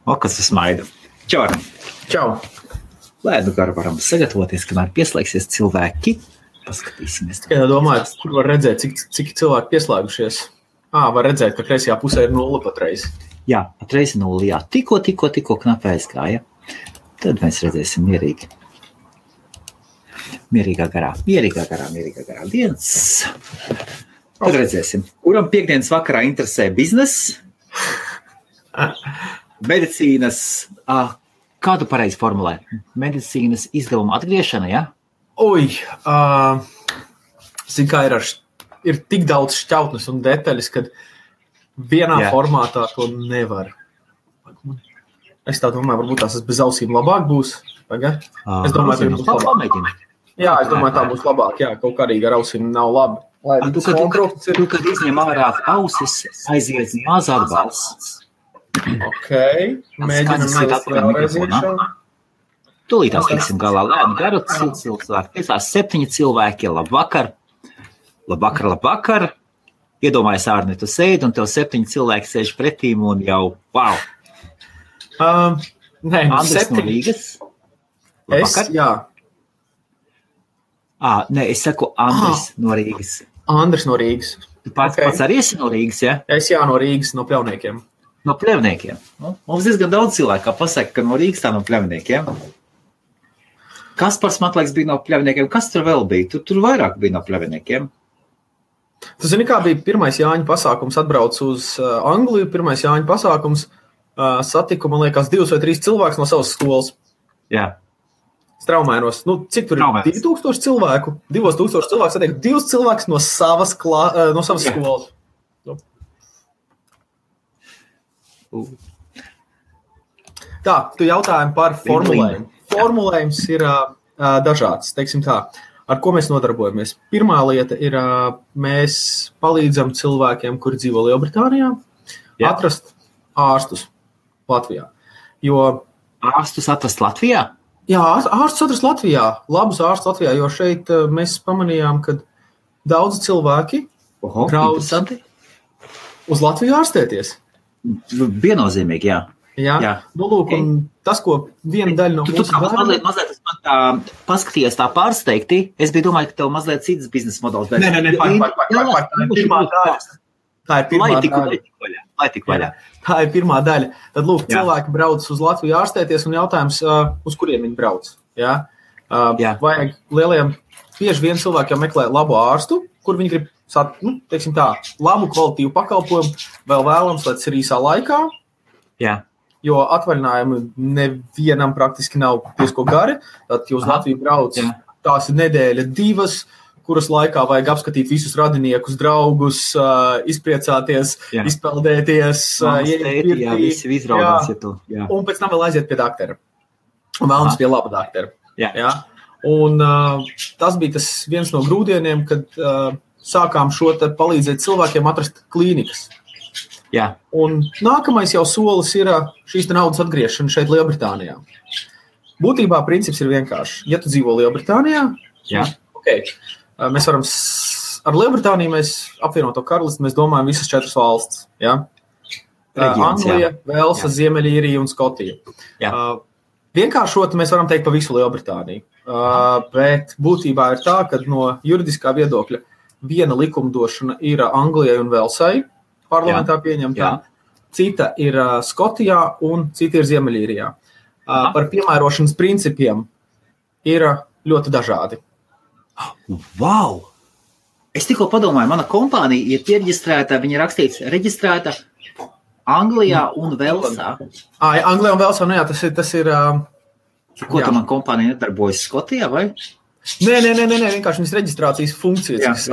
O, kas smaida. Čau. Čau. Lai nu gar varam sagatavoties, kamēr pieslēgsies cilvēki. Paskatīsimies. Tikai domāju, kur var redzēt, cik cilvēki pieslēgušies. Var redzēt, ka kreisajā pusē ir 0 patreiz. Jā, patreiz 0, jā. Tikko knapi aizgāja. Tad mēs redzēsim mierīgi. Mierīgā garā dienas. Tad redzēsim. Kuram piekdienas vakarā interesē biznes, medicīnas, kādu pareizi formulē? Medicīnas izdevuma atgriešana, ja? Zin kā ir tik daudz šķautnes un detaļas, kad vienā formātā to nevar. Es tā domāju, varbūt tās bez ausīm labāk būs. Es domāju, tā būs labāk. Jā, es domāju, tā būs labāk. Jā, kaut kādīgi ar ausīm nav labi. Tu, kad izņem ārā ausis, aiziet maz atbalsts. Ok, mēģinam vēlreiz iekšā. Tūlītās tiksim galā lēnu garu cilvēku. 7 cilvēki, labvakar. Iedomājies, Ārni, tu sēdi un tev 7 cilvēki sēž pretīm un jau, wow. Andris 7. No Rīgas. Labvakar. Jā. Es saku Andris no Rīgas. Andris no Rīgas. Tu pats arī esi no Rīgas, ja? Es no Rīgas, no Pļavniekiem. No Pļavniekiem. Mums diezgan daudz cilvēku, kā pasaka, ka no Rīgas tā no Pļavniekiem. Kaspars Matlaiks bija no Pļavniekiem. Kas tur vēl bija? Tur vairāk bija no Pļavniekiem. Tu zini, kā bija pirmais Jāņa pasākums, atbrauc uz Angliju, pirmais Jāņa pasākums, satiku, man liekas, 2 vai 3 cilvēkus no savas skolas. Jā. Straumēnos. Cik tur ir? 2000 cilvēku? 2000 cilvēku satiek 2 cilvēkus no savas skolas. Tā, tu jautājumi par formulējumu. Formulējums ir dažāds, teiksim tā. Ar ko mēs nodarbojamies? Pirmā lieta ir, mēs palīdzam cilvēkiem, kuri dzīvo Lielbritānijā, atrast ārstus Latvijā. Ārstus atrast Latvijā? Jā, ārstus atrast Latvijā, labus ārstus Latvijā, jo šeit mēs pamanījām, ka daudzi cilvēki brauc uz Latviju ārstēties. Viennozīmīgi, jā. Jā. Lūk, un tas, ko viena daļa no mūsu bērniem... Tu mazliet man tā paskatījies tā pārsteigti. Es biju domāju, ka tev mazliet cits biznesa modelis. Nē, tā ir pirmā daļa. Lai tik vaļā. Tā ir pirmā daļa. Tad, lūk, cilvēki brauc uz Latviju ārstēties un jautājums, uz kuriem viņi brauc. Jā? Vajag bieži vien cilvēkiem meklē labu ārstu, kur viņi grib, teiksim tā, labu kvalitīvu pakalpojumu, vēl vēlams, lai tas ir īsā laikā. Jā. Jo atvaļinājumi nevienam praktiski nav diezko gari, tad jūs Latviju brauc, tās ir nedēļa 2, kuras laikā vajag apskatīt visus radiniekus, draugus, izpriecāties, izpeldēties, visi izraudās, un pēc tam vēl aiziet pie daktera. Un vēlams pie laba daktera. Jā. Un tas bija tas viens no grūdieniem, kad sākām šo te palīdzēt cilvēkiem atrast klīnikas. Jā. Un nākamais jau solis ir šīs naudas atgriešana šeit Lielbritānijā. Būtībā princips ir vienkārši. Ja tu dzīvo Lielbritānijā, mēs varam ar Lielbritāniju mēs apvienoto karalisti, mēs domājam visas 4 valstis. Ja? Anglija, Velsa, Ziemeļīrija un Skotija. Vienkāršot mēs varam teikt pa visu Lielbritāniju. Bet būtībā ir tā, ka no juridiskā viedokļa viena likumdošana ir Anglijai un Velsai, parlamentā pieņemtā, cita ir Skotijā un cita ir Ziemeļīrijā. Par piemērošanas principiem ir ļoti dažādi. Wow! Es tikko padomāju, mana kompānija ir pieregistrēta, viņa rakstīts reģistrēta Anglijā un Velsā. Anglijā un Velsā, tas ir... Ko tā man kompānija nedarbojas Skotijā, vai? Nē, vienkārši viņas reģistrācijas funkcijas.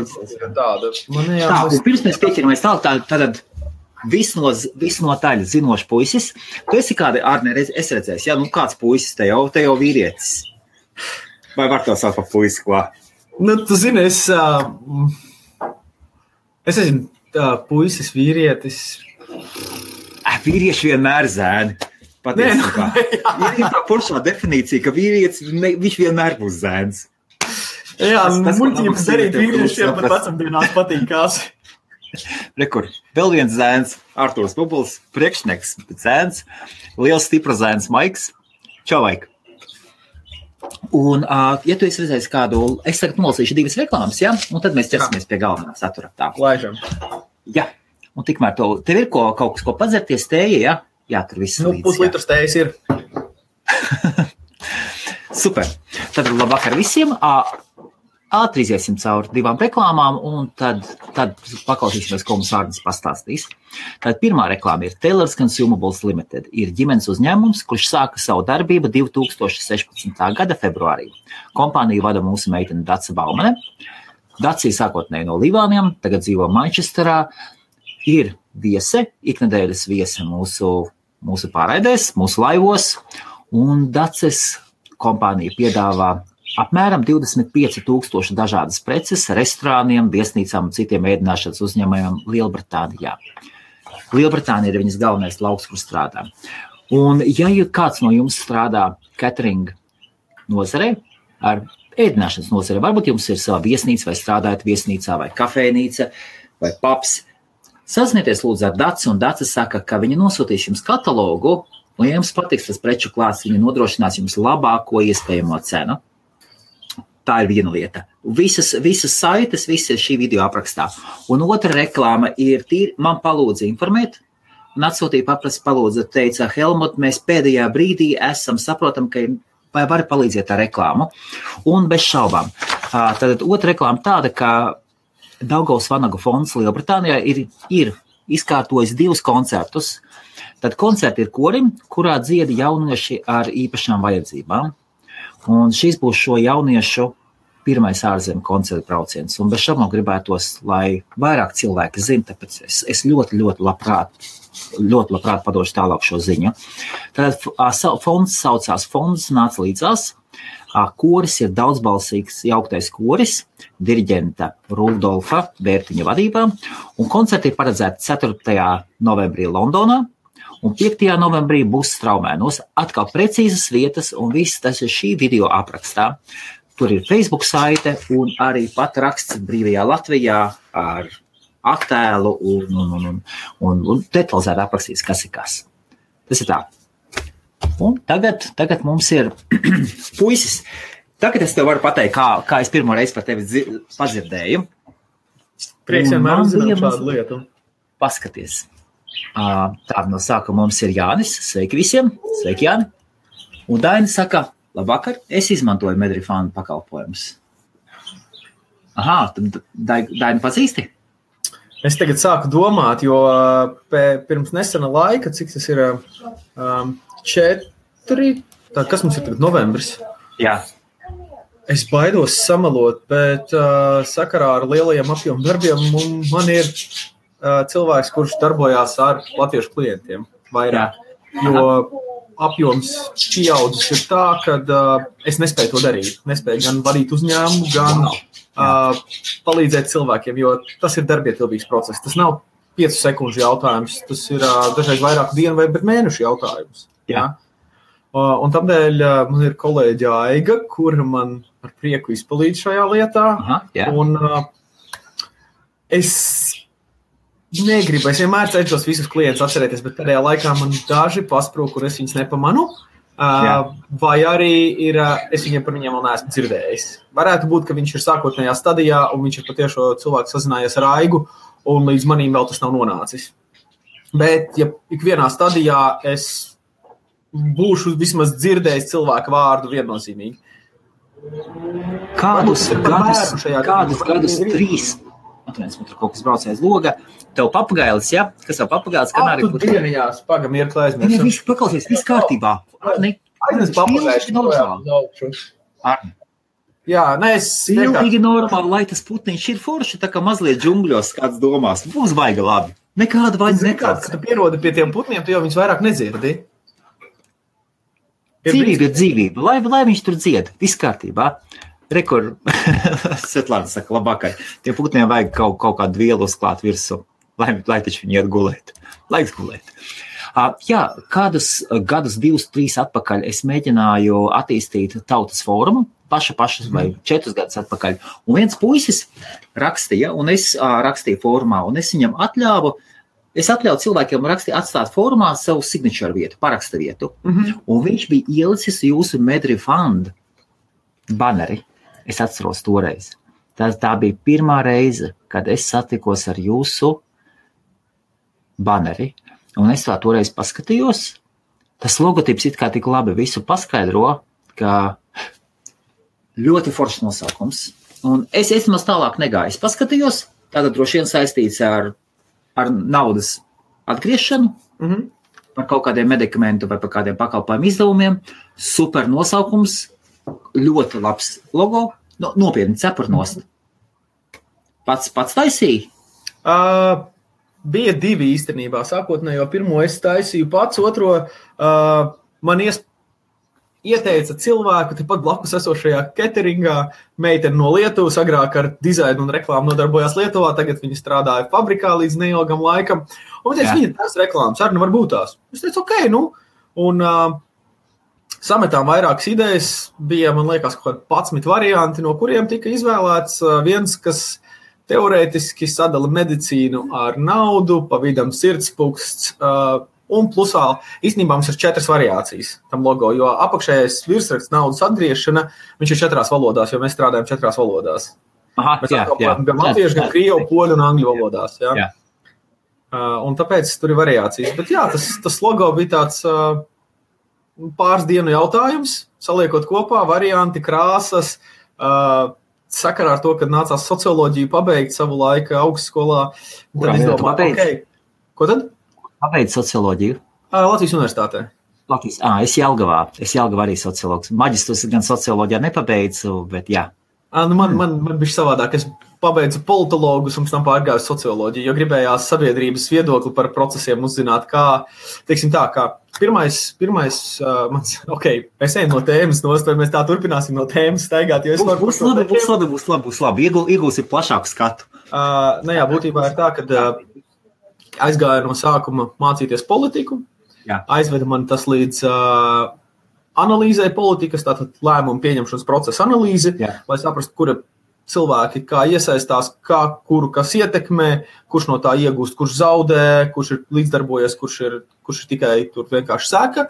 Pirms mēs pieķeramies tātad visnotaļ zinošs puisis. Tu esi kādi, Ārne, es redzēju, kāds puisis te jau vīrietis. Vai var to saukt par puisi, ko? Tu zini, es esmu puisis, vīrietis. Vīrieši vienmēr zēni. Patiesībā. Ir tā poršā definīcija, ka vīrietis, viņš vienmēr būs zēns. Jā, muļķības darīt vīriešiem pat vecumdienās patīkās. Rekur, vēl viens zēns, Artūrs Pupuls, priekšnieks, zēns, liels stipra zēns Maiks. Čau, Maik! Un, ja tu esi redzējis kādu, es tagad nolasīšu 2 reklāmas, ja? Un tad mēs ķersimies pie galvenā satura. Tā. Laižam. Jā, un tikmēr tev ir kaut kas, ko padzerties tēja, ja? Jā, tur viss līdz. Puslitrs tējas ir. Super. Tad labvakar visiem. Ātri iziesim cauri 2 reklāmām, un tad paklausīsimies, ko mums Ārnis pastāstīs. Tad pirmā reklāma ir Taylor's Consumables Limited. Ir ģimenes uzņēmums, kurš sāka savu darbību 2016. gada februārī. Kompāniju vada mūsu meitene Dace Baumane. Dace ir sākotnēji no Livāniem, tagad dzīvo Manchesterā. Ir viese, iknedēļas viese mūsu pārraidēs, mūsu laivos, un Daces kompānija piedāvā apmēram 25,000 dažādas preces restorāniem, viesnīcām un citiem ēdināšanas uzņēmējiem Lielbritānijā. Lielbritānija ir viņas galvenais lauks, kur strādā. Un ja kāds no jums strādā catering nozarē, ar ēdināšanas nozarē, varbūt jums ir sava viesnīca vai strādājat viesnīcā vai kafejnīca vai pubs, saznieties lūdzu ar Daci, un Daci saka, ka viņi nosūtīs jums katalogu, un ja jums patiks tas preču klāsts, viņi nodrošinās jums labāko iespējamo cenu. Tā ir viena lieta. Visas saites, visi ir šī video aprakstā. Un otra reklāma ir tīri, man palūdza informēt, un atsūtīja palūdza, teica, Helmut, mēs pēdējā brīdī saprotam, ka vai vari palīdziet ar reklāmu. Un bez šaubām. Tad otra reklāma tāda, ka Daugavas Vanagu fonds Lielbritānijā ir izkārtojis 2 koncertus. Tad koncerti ir korim, kurā dzieda jaunieši ar īpašām vajadzībām. Un šis būs šo jauniešu pirmais ārzemju koncertu brauciens. Un bez šaubām gribētos, lai vairāk cilvēki zina, tāpēc es ļoti labprāt padošu tālāk šo ziņu. Tad fonds saucās Fonds nāc līdzās. Koris ir daudzbalsīgs jauktais koris, diriģenta Rudolfa Bērtiņa vadībā. Un koncerti ir paredzēti 4. novembrī Londonā. Un 5. novembrī būs Straumēnos. Atkal precīzas vietas, un viss tas ir šī video aprakstā. Tur ir Facebook saite un arī pat raksts Brīvajā Latvijā ar attēlu un detalizēti aprakstīts, kas ir kas. Tas ir tā. Un tagad mums ir puisis. Tagad es tev varu pateikt, kā es pirmo reizi par tevi padzirdēju. Prieks vienmēr uzzināt šādu lietu. Paskaties. Tā no sākuma mums ir Jānis. Sveiki visiem. Sveiki, Jāni. Un Daina saka, labvakar, es izmantoju Medrifānu pakalpojumus. Tad Daina pazīsti? Es tagad sāku domāt, jo pirms nesena laika, cik tas ir 4, kas mums ir tagad novembris? Jā. Es baidos samalot, bet sakarā ar lielajiem apjomu darbiem man ir cilvēks, kurš darbojās ar latviešu klientiem vairāk, jo apjoms pieaudzis ir tā, ka es nespēju to darīt. Nespēju gan vadīt uzņēmumu, gan palīdzēt cilvēkiem, jo tas ir darbietilvīgs process. Tas nav 5 sekundžu jautājums, tas ir dažreiz vairāku dienu vai mēnešu jautājums. Jā. Un tādēļ man ir kolēģi Aiga, kura man ar prieku izpalīdz šajā lietā. Un es negribu, es vienmēr cenšos visus klientus atcerēties, bet pēdējā laikā man daži pasprūk, kur es viņus nepamanu, vai arī es par viņiem vēl neesmu dzirdējis. Varētu būt, ka viņš ir sākotnējā stadijā, un viņš ir patiešo cilvēku sazinājies ar Aigu, un līdz manīm vēl tas nav nonācis. Bet, ja ikvienā stadijā es būšu vismaz dzirdējis cilvēku vārdu viennozīmīgi. Kādus gadus 3? Atviens, man tur kaut kas brauc aiz loga. Tev papagailis, ja? Kas tev papagailis? Tu dienījās, pagam ir klēsmēs. Viņa visu paklausies, viss kārtībā. Arni, aiznes papagailis. Arni. Jā, es pilnīgi normāli, lai tas putniņš ir forši, tā kā mazliet džungļos kāds domās. Būs baiga labi. Nekāda vainas nekāds. Kad tu pierodi pie tiem putniem, tu jau viņus vairāk nedzirdi. Dzīvība ir dzīvība. Lai viņš tur dzied. Viss kārtībā. Rekur, Svetlāna saka, labākai, tiem putniem vajag kaut kādu vielu uzklāt virsū, lai taču viņi iet gulēt. Laiks gulēt. Kādus gadus 2-3 atpakaļ es mēģināju attīstīt tautas fórumu. paša vai 4 gadus atpakaļ. Un viens puisis rakstīja, un es rakstīju fórumā, un es viņam atļauju cilvēkiem atstāt fórumā savu signature vietu, paraksta vietu. Un viņš bija ielicis jūsu MedRefund baneri. Es atceros toreiz. Tā bija pirmā reize, kad es satikos ar jūsu baneri. Un es tā toreiz paskatījos. Tas logotips it kā tik labi visu paskaidro, ka ļoti foršs nosaukums. Un es maz tālāk negāju. Es paskatījos, tātad droši vien saistīts ar naudas atgriešanu, par kaut kādiem medikamentu vai par kādiem pakalpojumu izdevumiem. Super nosaukums, ļoti labs logo, nopietni cepurnost. Pats taisīja? Bija 2 īstenībā. Sākotnējo pirmo es taisīju pats, otro man ieteica cilvēku tepat blakus esošajā cateringā, meitene no Lietuvas, agrāk ar dizainu un reklāmu nodarbojās Lietuvā, tagad viņa strādāja fabrikā līdz neilgam laikam. Un teica, viņa tās reklāmas arī var būt tās. Es teicu, ok, un sametām vairākas idejas, bija, man liekas, kaut kādi 11 varianti, no kuriem tika izvēlēts viens, kas teorētiski sadala medicīnu ar naudu, pa vidam sirdspuksts, un plusā, īstenībā mums ir 4 variācijas tam logo, jo apakšējais virsraksts naudas atgriešana, viņš ir 4 valodās, jo mēs strādājam 4 valodās. Mēs apkalpojam gan latviešu, gan krievu, poļu un angļu valodās. Jā. Un tāpēc tur ir variācijas. Bet jā, tas logo bija tāds pāris dienu jautājums, saliekot kopā varianti, krāsas, sakarā ar to, kad nācās socioloģiju pabeigt savu laiku augstskolā. Tad izdomā, Ko tad? Pabeidz socioloģiju? Latvijas universitātē. Es Jelgavā arī sociologs. Maģistrus gan socioloģijā nepabeidzu, bet jā. Man bija savādāk. Es pabeidzu politologus un pēc tam pārgāju socioloģiju, jo gribējās sabiedrības viedokli par procesiem uzzināt, kā pirmais mans, mēs ejam no tēmas nost, vai mēs tā turpināsim no tēmas staigāt, jo es varu... Būs labi. Iegūsim plašāku skatu. Būtībā ir tā, ka aizgāju no sākuma mācīties politiku, aizveda man tas līdz analīzē politikas, tātad lēmumu pieņemšanas procesa analīzi, lai saprastu, kura cilvēki kā iesaistās, kuru kas ietekmē, kurš no tā iegūst, kurš zaudē, kurš ir līdzdarbojies, kurš ir tikai tur vienkārši seka.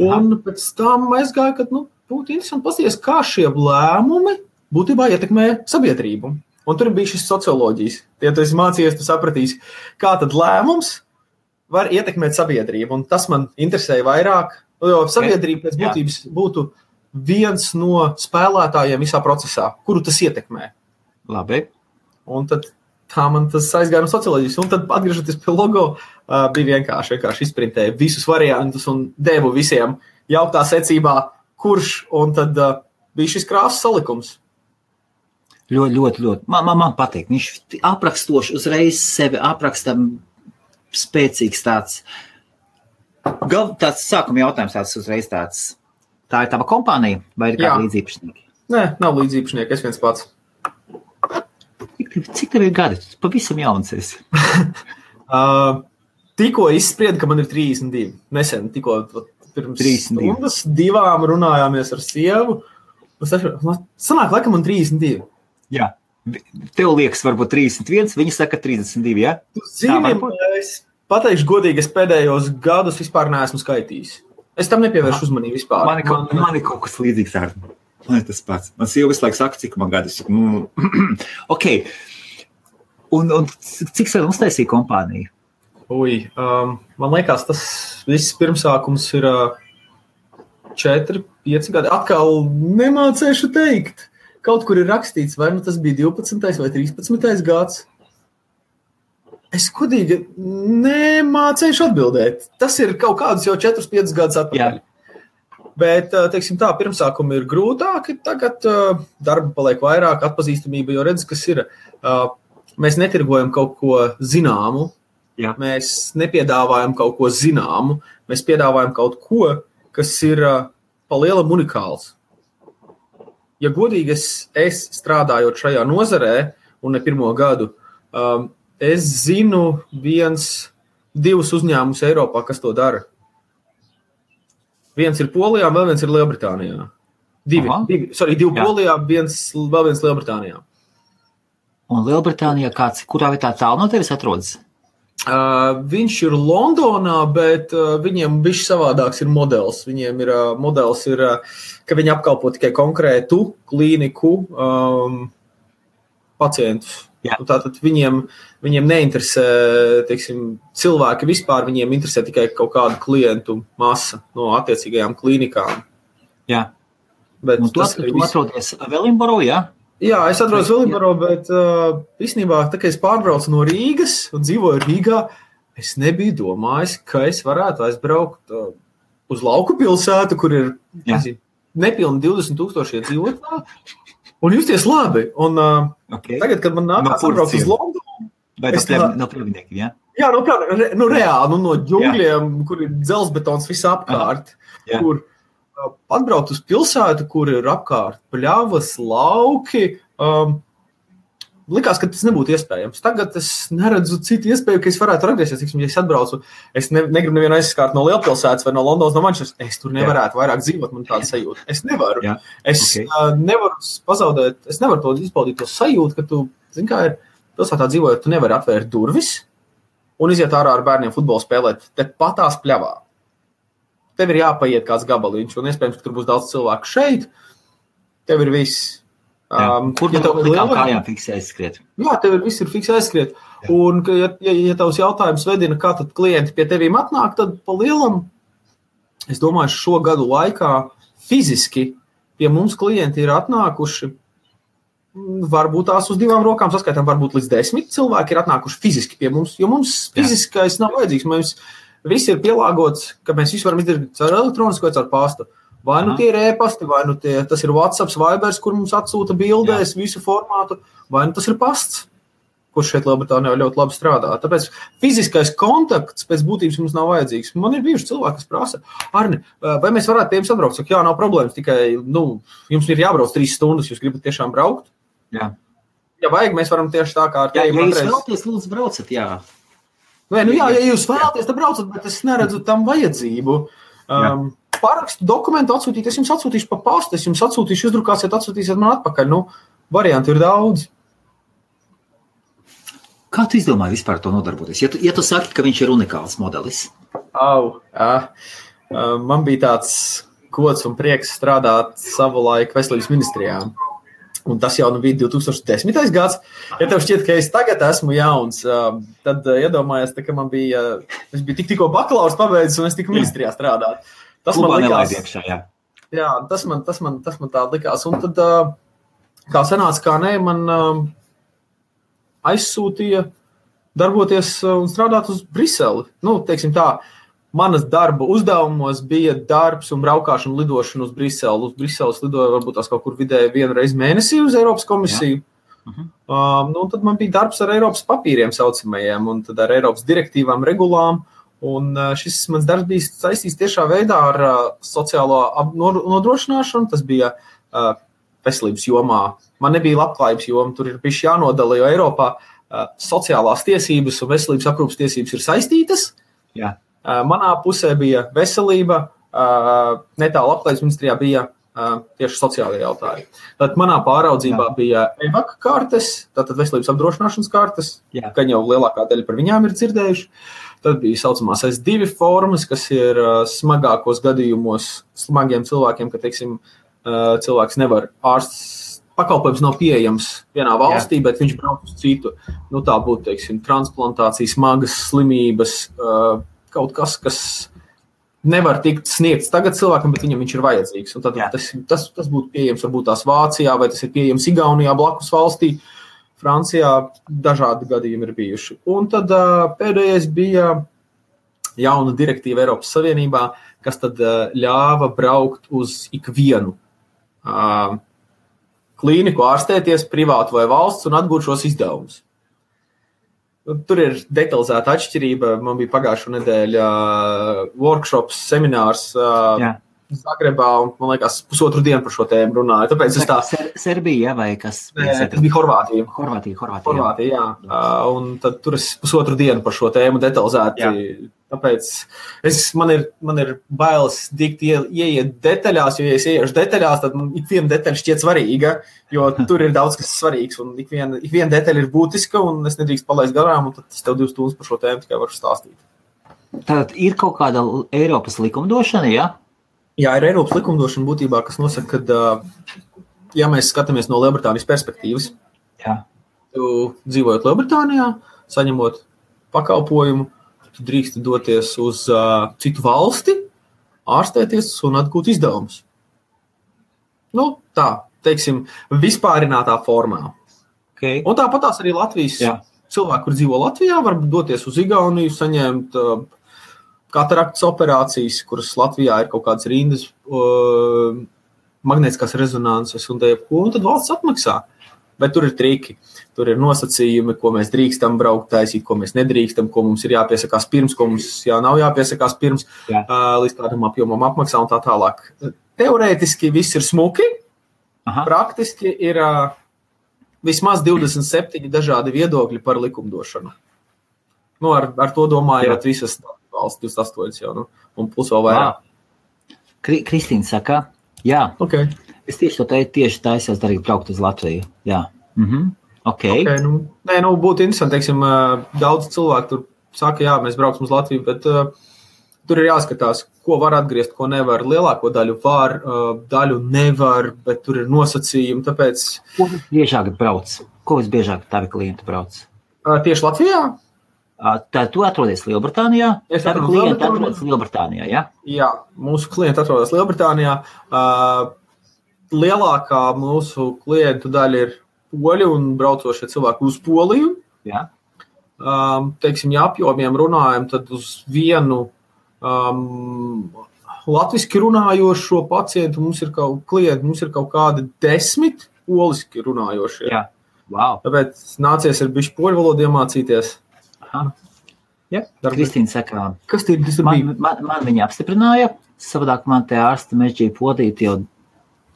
Un pēc tam aizgāju, ka būtu interesanti paskatīties, kā šie lēmumi būtībā ietekmē sabiedrību. Un tur bija šis socioloģijas. Ja tu esi mācījies, tu sapratīsi, kā tad lēmums var ietekmēt sabiedrību. Un tas man interesēja vairāk, jo sabiedrība pēc būtības būtu viens no spēlētājiem visā procesā, kuru tas ietekmē. Labi. Un tad tā man tas aizgāja no socioloģijas. Un tad atgriežoties pie logo, bija vienkārši izprintēja visus variantus un devu visiem jauktā secībā, kurš, un tad bija šis krāsas salikums. Ļoti. Man patīk. Viņš aprakstoši uzreiz sevi aprakstam spēcīgs tāds sākuma jautājums tāds uzreiz tāds. Tā ir tava kompānija vai ir kāda līdzīpašnieki? Nē, nav līdzīpašnieki, es viens pats. Cik tev ir gadi? Tu pavisam jauns esi. Tikko izsprieda, ka man ir 32. Nesen, tikko pirms 32. stundas 2 runājāmies ar sievu. Sanāk, laikam man 32. Jā. Tev liekas varbūt 31, viņa saka 32, ja? Es pateikšu godīgi, es pēdējos gadus vispār neesmu skaitījis. Es tam nepievēršu uzmanību vispār. Man ir kaut kas līdzīgs ar. Man ir tas pats. Man sieva visu laiku saka, cik man gadus. Ok. Un cik sen uztaisīja kompāniju? Man liekas, tas viss pirmsākums ir 4-5 gadi. Atkal nemācēšu teikt. Kaut kur ir rakstīts, vai tas bija 12. vai 13. gads. Es godīgi nemācēšu atbildēt. Tas ir kaut kādus jau 4-5 gadus atpakaļ. Bet, teiksim tā, pirmsākumi ir grūtāki, tagad darba paliek vairāk, atpazīstamība, jo redz, kas ir. Mēs netirgojam kaut ko zināmu, mēs nepiedāvājam kaut ko zināmu, mēs piedāvājam kaut ko, kas ir pa lielam unikāls. Ja godīgi es strādājot šajā nozarē, un ne pirmo gadu, es zinu 1-2 uzņēmumus Eiropā, kas to dara. Viens ir Polijā, vēl viens ir Lielbritānijā. Divi Polijā, vēl viens Lielbritānijā. Un Lielbritānijā kurā vietā tālu no tevis atrodas? Viņš ir Londonā, bet viņiem bišķi savādāks ir modelis. Viņiem ir modelis, ka viņi apkalpo tikai konkrētu klīniku pacientus. Tātad viņiem neinteresē, teiksim, cilvēki vispār, viņiem interesē tikai kaut kādu klientu masa no attiecīgajām klīnikām. Jā. Bet tu atrodies Wellingboro, jā? Jā, es atrodos Wellingboro, bet īstenībā, tā kā es pārbraucu no Rīgas un dzīvoju Rīgā, es nebiju domājis, ka es varētu aizbraukt uz lauku pilsētu, kur ir nepilni 20,000 iedzīvotāji. Un justies labi. Un tagad, kad man nākās atbraukt uz Londonu... Vai no Prievidniekiem, jā? Jā, reāli, no ģungļiem, kur ir dzelzbetons visā apkārt, kur atbraukt uz pilsētu, kur ir apkārt pļavas, lauki, likās, ka tas nebūtu iespējams. Tagad es neredzu citu iespēju, ka es varētu atgriezties. Ja es atbraucu, es negribu nevienu aizskārt no lielpilsētas vai no Londonas, no Manchesteras. Es tur nevarētu vairāk dzīvot, man tāda sajūta. Es nevaru. Es nevaru pazaudēt, es nevaru to izbaudīt to sajūtu, ka tu, zini, kā ir pilsētā dzīvojot, tu nevari atvērt durvis un iziet ārā ar bērniem futbolu spēlēt te patās pļavā. Tev ir jāpaiet kāds gabaliņš, un iespējams, ka tur būs daudz cilvēku šeit. Tev ir viss. Kur tev kājām fiksē aizskriet? Jā, tev viss ir fiksē aizskriet. Un, ja tavs jautājums vedina, kā tad klienti pie tevīm atnāk, tad pa lielam, es domāju, šo gadu laikā fiziski pie mums klienti ir atnākuši, varbūt tās uz 2 rokām saskaitām, varbūt līdz 10 cilvēki ir atnākuši fiziski pie mums, jo mums fiziskais nav vajadzīgs. Mums viss ir pielāgots, ka mēs visu varam izdarīt caur elektronisko vai caur pastu. Vai nu tie ir e-pasti, vai nu tas ir WhatsApp, Vibers, kur mums atsūta bildēs visu formātu, vai nu tas ir pasts, kurš šeit Lielbritānijā ļoti labi strādā. Tāpēc fiziskais kontakts pēc būtības mums nav vajadzīgs. Man ir bijuši cilvēki, kas prasa, Arni, vai mēs varētu pie jums atbraukt? Saka, jā, nav problēmas, tikai, jums ir jābrauc 3 stundas, jūs gribat tiešām braukt? Jā. Ja vajag, mēs varam tieši tā kā ar tevi. Ja jūs vēlaties, lūdzu, braucat, jā. Vai, ja jūs vēlaties, tad braucat, bet es neredzu tam vajadzību. Parakstu dokumentu atsūtīt, es jums atsūtīšu pa pastu, es jums atsūtīšu, izdrukāsiet, atsūtīsiet man atpakaļ. Varianti ir daudz. Kā tu izdomāji vispār to nodarboties? Ja tu saki, ka viņš ir unikāls modelis? Man bija tāds gods un prieks strādāt savulaik veselības ministrijā. Un tas jau bija 2010. gads. Ja tev šķiet, ka es tagad esmu jauns, tad iedomājies, ka man bija, es biju tikko bakalaurs pabeidzis un es tiku ministrijā strādāt. Tas man likās. Jā, tas man tā likās. Un tad, kā sanāca, kā nē, man aizsūtīja darboties un strādāt uz Briseli. Teiksim tā, manas darba uzdevumos bija darbs un braukāšana lidošana uz Briseli. Uz Briseles lidoja varbūt tās kaut kur vidēji 1 reizi mēnesī uz Eiropas komisiju. Tad man bija darbs ar Eiropas papīriem saucamajiem un tad ar Eiropas direktīvām, regulām. Un šis mans darbs bija saistīts tiešā veidā ar sociālo nodrošināšanu. Tas bija veselības jomā. Man nebija labklājības joma, tur ir bišķi jānodala, jo Eiropā sociālās tiesības un veselības aprūpas tiesības ir saistītas. Jā. Manā pusē bija veselība, netālu labklājības ministrijā bija tieši sociālajie jautājumi. Tad manā pāraudzībā bija EVAK kartes, tātad veselības apdrošināšanas kartes, ka jau lielākā daļa par viņām ir dzirdējuši. Tad bija saucamās S2 formas, kas ir smagākos gadījumos smagiem cilvēkiem, ka, teiksim, cilvēks nevar ārsts, pakalpojums nav pieejams vienā valstī, bet viņš brauc uz citu. Tā būtu, teiksim, transplantācija, smagas slimības, kaut kas nevar tikt sniegts tagad cilvēkam, bet viņam viņš ir vajadzīgs. Un tad tas būtu pieejams varbūt tās Vācijā, vai tas ir pieejams Igaunijā, blakus valstī. Francijā dažādi gadījumi ir bijuši. Un tad pēdējais bija jauna direktīva Eiropas Savienībā, kas tad ļāva braukt uz ikvienu klīniku, ārstēties, privātu vai valsts un atgūt šos izdevumus. Tur ir detalizēta atšķirība. Man bija pagājušo nedēļu workshops, seminārs Zagrebā, un, man liekas, pusotru dienu par šo tēmu runāju. Tāpēc es tā... Serbija, vai kas? Nē, tas bija Horvātija. Horvātija, jā. Un tad tur es pusotru dienu par šo tēmu detalizēti. Jā. Tāpēc man ir bailes dikt ieiet detaļās, jo, ja es ieiešu detaļās, tad ik viena detaļa šķiet svarīga, jo tur ir daudz, kas svarīgs, un ik viena detaļa ir būtiska, un es nedrīkst palaist garām, un tad es tev 2 stundas par šo tēmu tikai varu stāstīt. Tātad ir kaut kāda Eiropas likumdošana, ja? Jā, ir Eiropas likumdošana būtībā, kas nosaka, ka, ja mēs skatāmies no Lielbritānijas perspektīvas, tu dzīvojot Lielbritānijā, saņemot pakalpojumu, tu drīkst doties uz citu valsti, ārstēties un atgūt izdevumus. Nu, tā, teiksim, vispārinātā formā. Okay. Un tāpatās arī Latvijas cilvēki, kur dzīvo Latvijā, var doties uz Igauniju, saņemt kataraktas operācijas, kuras Latvijā ir kaut kādas rindas, magnētiskās rezonanses un tad valsts atmaksā. Bet tur ir triki, tur ir nosacījumi, ko mēs drīkstam braukt taisīt, ko mēs nedrīkstam, ko mums ir jāpiesakās pirms, ko mums nav jāpiesakās pirms, līdz kādam apjomam apmaksā un tā tālāk. Teorētiski viss ir smuki, praktiski ir vismaz 27 dažādi viedokļi par likumdošanu. Nu, ar to domājot visas valsts 28 jau, un plus vēl vairāk. Kristīna saka, jā. Okay. Es tieši taisos darīt braukt uz Latviju. Jā. Okay. Būtu interesanti, teiksim, daudz cilvēku tur saka, jā, mēs brauksim uz Latviju, bet tur ir jāskatās, ko var atgriezt, ko nevar. Lielāko daļu var, daļu nevar, bet tur ir nosacījumi, tāpēc... Ko visbiežāk brauc? Ko visbiežāk tavi klienti brauc? Tieši Latvijā? Tā tu atrodies Lielbritānijā? Tavi klienti atrodas Lielbritānijā, jā? Jā, mūsu klienti atrodas Lielbritānijā. Lielākā mūsu klientu daļa ir poļi un braucošie cilvēki uz Poliju. Jā. Teiksim, ja apjomiem runājam, tad uz vienu latviski runājošo pacientu mums ir kaut kādi 10 poliski runājošie. Jā. Wow. Tāpēc nācies ir bišķi poļu valodu iemācīties. Aha. Jā. Kristīna saka, kas bija? Man viņa apstiprināja, savādāk man te ārsta mežģīja podīt jau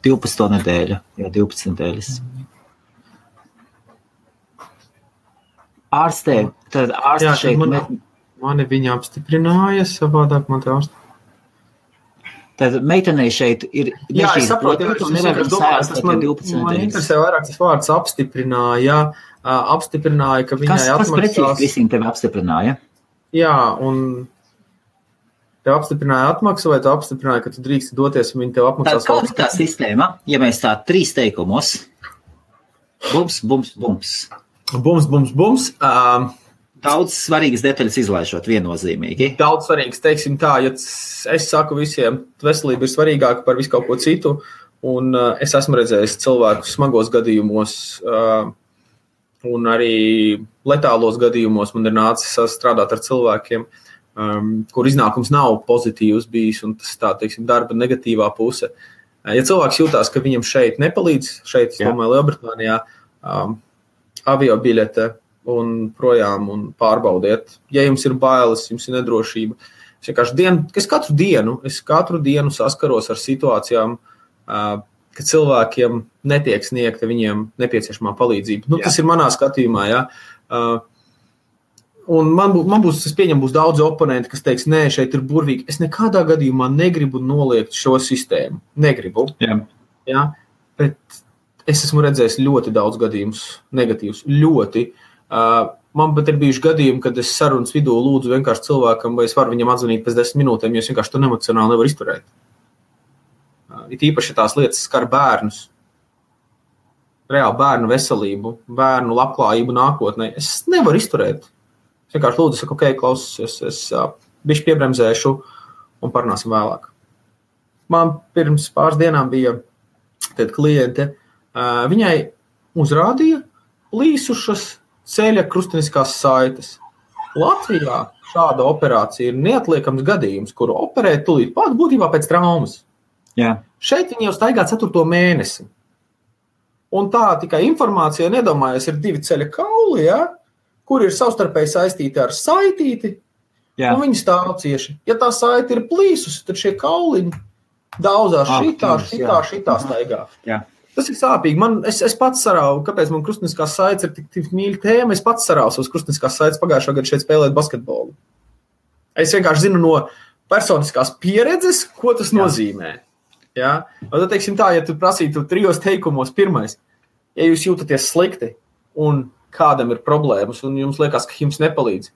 12 nedēļu, jau 12 nedēļas. Ārstē, tad ārsta šeit... Mani viņa apstiprināja, savādāk man te ārsta. Tad meitenei šeit ir... Jā, es saprotu, man interesē vairāk tas vārds apstiprināja, ka viņai atmaksās... Kas precīzi, Kristīna, tevi apstiprināja? Jā, un... Tev apstiprināja atmaksu, vai tev apstiprināja, ka tu drīkst doties un viņi tev apmaksās? Kāda ir tā sistēma, ja mēs tā 3 teikumos? Bums, bums, bums. Bums, bums, bums. Daudz svarīgas detaļas izlaižot viennozīmīgi. Daudz svarīgas, teiksim tā, ja es saku visiem, veselība ir svarīgāka par visu kaut ko citu, un es esmu redzējis cilvēkus smagos gadījumos, un arī letālos gadījumos man ir nācis strādāt ar cilvēkiem, kur iznākums nav pozitīvs bijis, un tas tā, teiksim, darba negatīvā puse. Ja cilvēks jūtās, ka viņam šeit nepalīdz, šeit, es domāju, Lielbritānijā, aviobiļete un projām un pārbaudiet. Ja jums ir bailes, jums ir nedrošība. Es katru dienu saskaros ar situācijām, ka cilvēkiem netiek sniegta viņiem nepieciešamā palīdzība. Tas ir manā skatījumā, jā. Un man būs, es pieņemu, būs daudz oponenti, kas teiks, nē, šeit ir burvīgi. Es nekādā gadījumā negribu noliegt šo sistēmu. Negribu. Jā, bet es esmu redzējis ļoti daudz gadījumus negatīvus. Ļoti. Man pat ir bijuši gadījumi, kad es sarunas vidū lūdzu vienkārši cilvēkam, vai es varu viņam atzvanīt pēc 10 minūtēm, jo es vienkārši to emocionāli nevaru izturēt. It īpaši tās lietas skar bērnus. Reāli bērnu veselību, bērnu labklājību nākotnē. Es nevaru izturēt. Es vienkārši lūdzu, saku, ok, klausies, es bišķi piebremzēšu un parunāsim vēlāk. Man pirms pāris dienām bija kliente, viņai uzrādīja plīsušas ceļa krustiniskās saites. Latvijā šāda operācija ir neatliekams gadījums, kuru operē tūlīt pat būtībā pēc traumas. Jā. Šeit viņi jau staigā 4. mēnesi. Un tā tikai informācija, nedomājies, ir 2 ceļa kauli, ja? Kur ir savstarpēji saistīti ar saitīti, un viņi stāv cieši. Ja tā saiti ir plīsusi, tad šie kauliņi daudzās šitā staigā. Jā. Tas ir sāpīgi. Es pats sarauju, kāpēc man krustniskās saites ir tik mīļa tēma. Es pats sarauju savas krustniskās saites pagājušā gada šeit spēlēt basketbolu. Es vienkārši zinu no personiskās pieredzes, ko tas nozīmē. Ja? Tad, teiksim tā, ja tu prasītu 3 teikumos, pirmais, ja jūs jūtaties slikti un kādam ir problēmas un jums liekas, ka jums nepalīdz,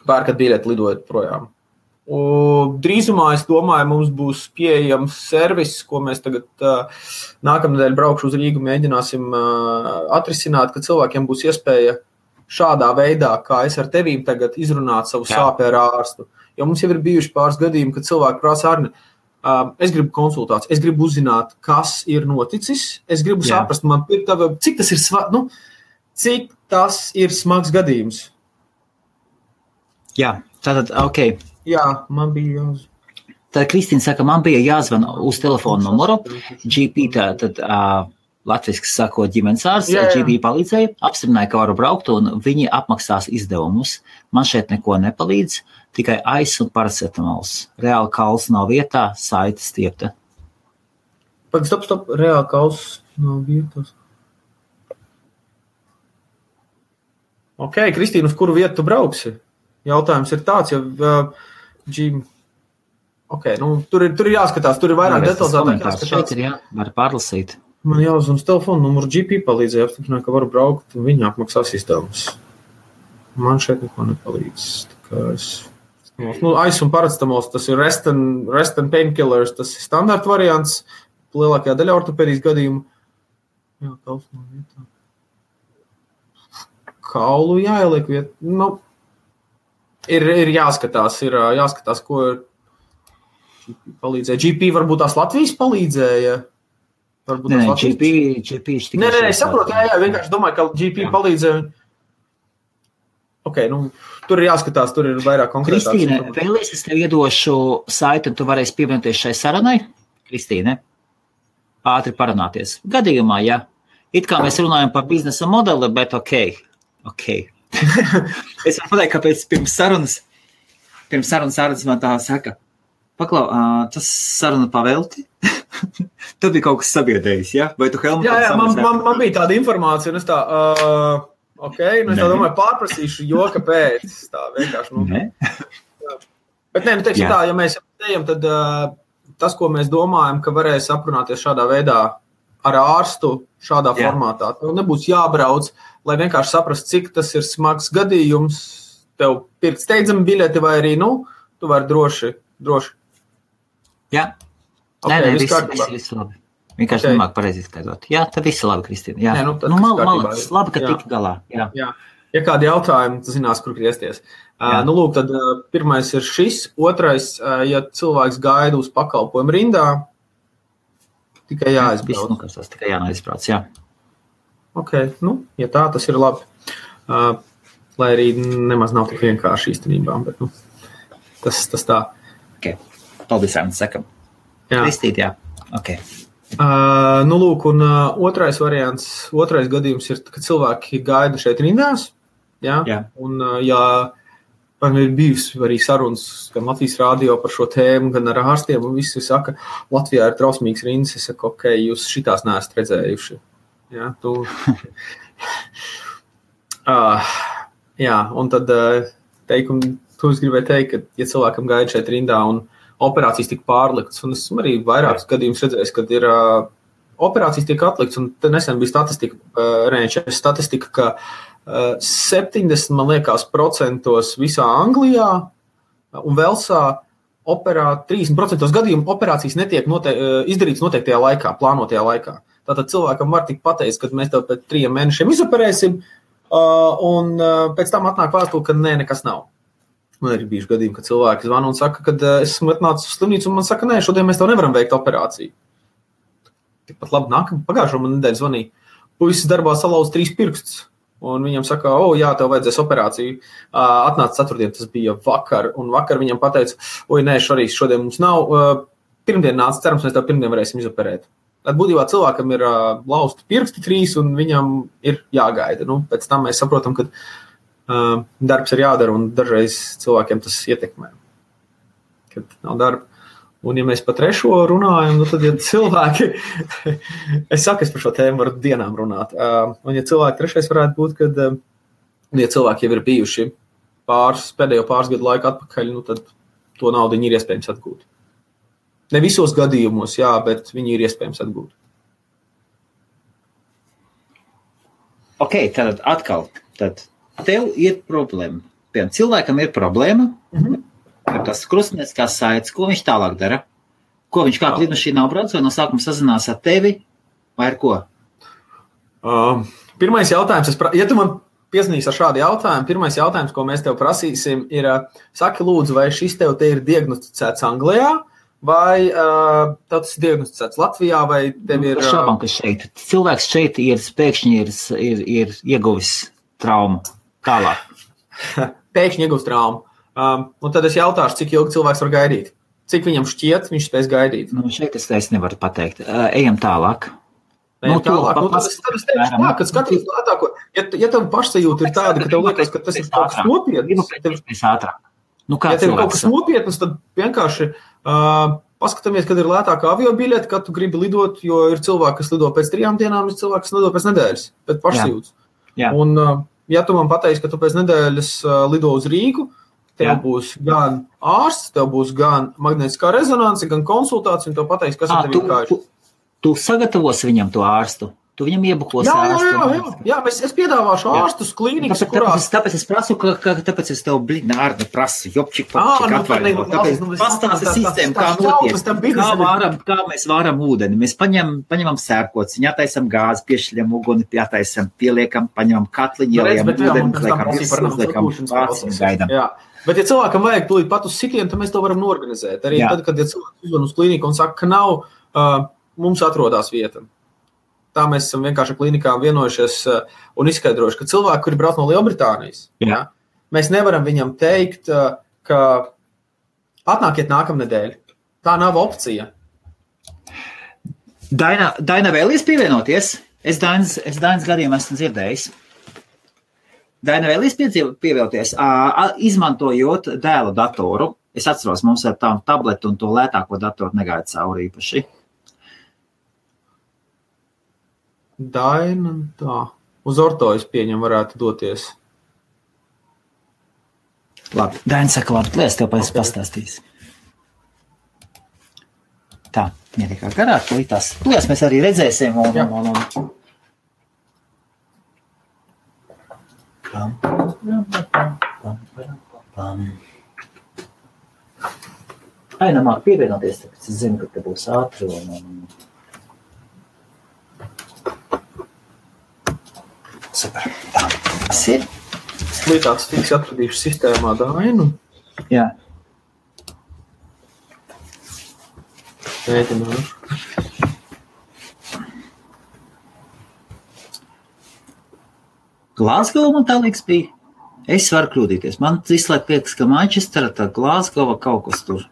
pērkat biļeti, lidojat projām. Drīzumā, es domāju, mums būs pieejams servis, ko mēs tagad nākamnedēļ braukšu uz Rīgu, mēģināsim atrisināt, ka cilvēkiem būs iespēja šādā veidā, kā es ar tevīm tagad izrunāt savu sāpi ar ārstu. Jo mums jau ir bijuši pāris gadījumi, kad cilvēki prasa, Arni, es gribu konsultāciju, es gribu uzzināt, kas ir noticis, es gribu saprast, cik tas ir smags gadījums. Jā, tātad, ok. Jā, man bija jāzvan. Tad Kristīna saka, man bija jāzvan uz telefonu numuru, GP, tad latviski sakot ģimenes ārsts, GP palīdzēja, apstiprināja, ka varu braukt, un viņi apmaksās izdevumus. Man šeit neko nepalīdz, tikai aiz un paracetamols. Reāli kauls nav vietā, saite stiepta. Stop, reāli kauls nav vietās. Ok, Kristīna, uz kuru vietu tu brauksi? Jautājums ir tāds, tur ir jāskatās, tur ir vairāk detalizētāk jāskatās. Šeit ir var pārlasīt. Man jāuzvan uz telefonu numuru, GP palīdzēja apstiprināt, ka varu braukt, un viņi apmaksās izdevumus. Man šeit neko nepalīdz. Aiz un paracetamols, tas ir rest and painkillers, tas ir standarta variants, lielākajā daļā ortopēdijas gadījumu. Jā, kauls nav vietā. Kaulu jāieliek vietā. Ir jāskatās, ko GP palīdzēja. GP varbūt tās Latvijas palīdzēja. Nē, GP Nē, es saprotu, vienkārši domāju, ka GP palīdzēja. Ok, tur ir jāskatās, tur ir vairāk konkrētāks. Kristīne, vēlies es tev iedošu saiti, un tu varēsi pievienoties šai sarunai? Kristīne, ātri parunāties. Gadījumā, ja. It kā mēs runājam par biznesa modeli, bet ok. Es varu pateikt, kāpēc pirms sarunas ārsts man tā saka. Paklau, tas saruna pavelti? Tad bija kaut kas sabiedējis, ja? Vai tu Helmut? Jā, man bija tāda informācija, un es tā, es tā domāju, pārprasīšu, jo kāpēc. Tā vienkārši, Bet teiksim tā, ja mēs ejam, tad tas, ko mēs domājam, ka varēs aprunāties šādā veidā ar ārstu, šādā formātā. Tev nebūs jābrauc, lai vienkārši saprast, cik tas ir smags gadījums. Tev pirkt steidzami biļeti vai arī, tu vari droši. Jā. Nē, viss labi. Vienkārši nemāk pareizi izskaidrot. Jā, tad viss labi, Kristīna. Jā. Malacis, labi, ka tik galā. Jā. Ja kādi jautājumi, tu zinās, kur griezties. Tad pirmais ir šis. Otrais, ja cilvēks gaida uz pakalpojumu rindā, tikai jāizbrauc. Tikai jāizbrauc, jā. Ok, ja tā, tas ir labi. Lai arī nemaz nav tik vienkārši īstenībā, bet tas tā. Ok, paldies, Ārnis, sakam. Kristīt, jā. Ok. Un otrais variants, otrais gadījums ir, kad cilvēki gaida šeit rindās, jā. Un, man ir bijusi arī sarunas gan Latvijas radio par šo tēmu, gan ar ārstiem, un visi saka, Latvijā ir trausmīgs rindas, es saku, ok, jūs šitās neesat redzējuši. Jā, un tad tu es gribēju teikt, ka, ja cilvēkam gaida šeit rindā un operācijas tika pārliktas, un esmu arī vairākus gadījumus redzējis, kad ir operācijas tiek atliktas, un te nesen bija statistika, ka 70, man liekas, procentos visā Anglijā un Velsā 30% gadījumu operācijas netiek izdarītas noteiktajā laikā, plānotajā laikā. Tātad cilvēkam var tik pateikt, ka mēs tev pēc 3 mēnešiem izoperēsim, un pēc tam atnāk vēstule, ka nē, nekas nav. Man ir bijuši gadījumi, kad cilvēki zvana un saka, ka esmu atnācis uz slimnīcu, un man saka, nē, šodien mēs tev nevaram veikt operāciju. Tikpat labi, pagājušo man nedēļu zvanīja. Puisis darbā salauz 3 pirkstus, un viņam saka, jā, tev vajadzēs operāciju. Atnāca 4. Tas bija vakar, un vakar viņam pateica, nē, šodien mums nav. Pirmdien nāca, cerams, mēs tev pirmdien varēsim izoperēt. Būtībā cilvēkam ir lausti pirksti 3, un viņam ir jāgaida. Pēc tam mēs saprotam, ka darbs ir jādara, un dažreiz cilvēkiem tas ietekmē, kad nav darba. Un, ja mēs par trešo runājam, tad, ja cilvēki, es par šo tēmu varu dienām runāt, un ja cilvēki trešais varētu būt, kad, ja cilvēki jau ir bijuši pēdējo pāris gadu laiku atpakaļ, tad to naudu viņi ir iespējams atgūt. Ne visos gadījumos, jā, bet viņi ir iespējams atgūt. Ok, tad atkal, tev ir problēma. Piemēram, cilvēkam ir problēma, tas krustnieciskās saites, ko viņš tālāk dara? Ko viņš kā lidmašīnā brauc, vai no sākuma sazinās ar tevi, vai ar ko? Pirmais jautājums, ja tu man piezinīs ar šādu jautājumu, pirmais jautājums, ko mēs tev prasīsim, ir, saki lūdzu, vai šis tev te ir diagnosticēts Anglijā, vai tas ir diagnosticēts Latvijā, vai tev ir... Šaubām, ka šeit. Cilvēks šeit pēkšņi ir ieguvis traumu tālāk. Pēkšņi ieguvis traumu. Un tad es jautāšu, cik ilgi cilvēks var gaidīt. Cik viņam šķiet, viņš spēs gaidīt. Šeit es nevaru pateikt. Ejam tālāk. Tālāk. Tad es teikšu, ka skaties lētāko. Ja tev pašsajūta ir tāda, ka tev liekas, ka tas ir kaut kas nopietns. Ja tev ir kaut kas nopietns, tad vienkārši paskatāmies, kad ir lētāka aviobiļete, kad tu gribi lidot, jo ir cilvēki, kas lido pēc 3 dienām, ir cilvēki, kas lido pēc nedēļas, pēc pašsajūtas. Un ja tu man pateiksi, ka tu pēc nedēļas lido uz Rīgu, tev būs gan ārsts, tev būs gan magnētiskā rezonanse, gan konsultācija, un tev pateiks, kas ar tevi ir kājuši. Tu sagatavosi viņam to ārstu? Tu viņam iebukos ārstu? Jā, es piedāvāšu ārstus klīnikas, kurās... Tāpēc es prasu, tāpēc es tev ārni prasu, jopčik, atvaļinot. Tāpēc pastāsti sistēmu, kā notiek, kā mēs vāram ūdeni. Mēs paņemam sērkots, viņu attaisam gāzi, piešļam uguni, pieliekam, paņemam katliņu, ieliekam ūdeni, liekam vācis un gaidam. Bet, ja cilvēkam vajag tūlīt pat uz sitienu, tad mēs to varam norganizēt. Arī tad, kad cilvēks uzvan uz klīniku un saka, ka nav, mums atrodas vieta. Tā mēs esam vienkārši klīnikām vienojušies un izskaidrojuši, ka cilvēki, kuri brauc no Lielbritānijas, mēs nevaram viņam teikt, ka atnākiet nākamnedēļ. Tā nav opcija. Daina vēlies pievienoties? Es Dainas gadījumā esmu dzirdējis. Daina vēlies pievienoties, izmantojot dēla datoru. Es atceros, mums ar tām tabletu un to lētāko datoru negaida cauri īpaši. Daina, tā. Uz ortojas pieņem varētu doties. Labi, Daina saka, labi, lies tev pēc pastāstīs. Tā, viņa tikai garāk, lītās. Lies mēs arī redzēsim un. Aina māk pievienoties, tāpēc es zinu, ka te būs ātri un... Super. Tā, tas ir. Līdāts tiks atradījuši sistēmā Dainu. Jā. Mēģināšu. Glāzgova man tā liekas bija. Es varu kļūdīties. Man vislaiku liekas, ka Manchestera, tā Glāzgova kaut kas tur.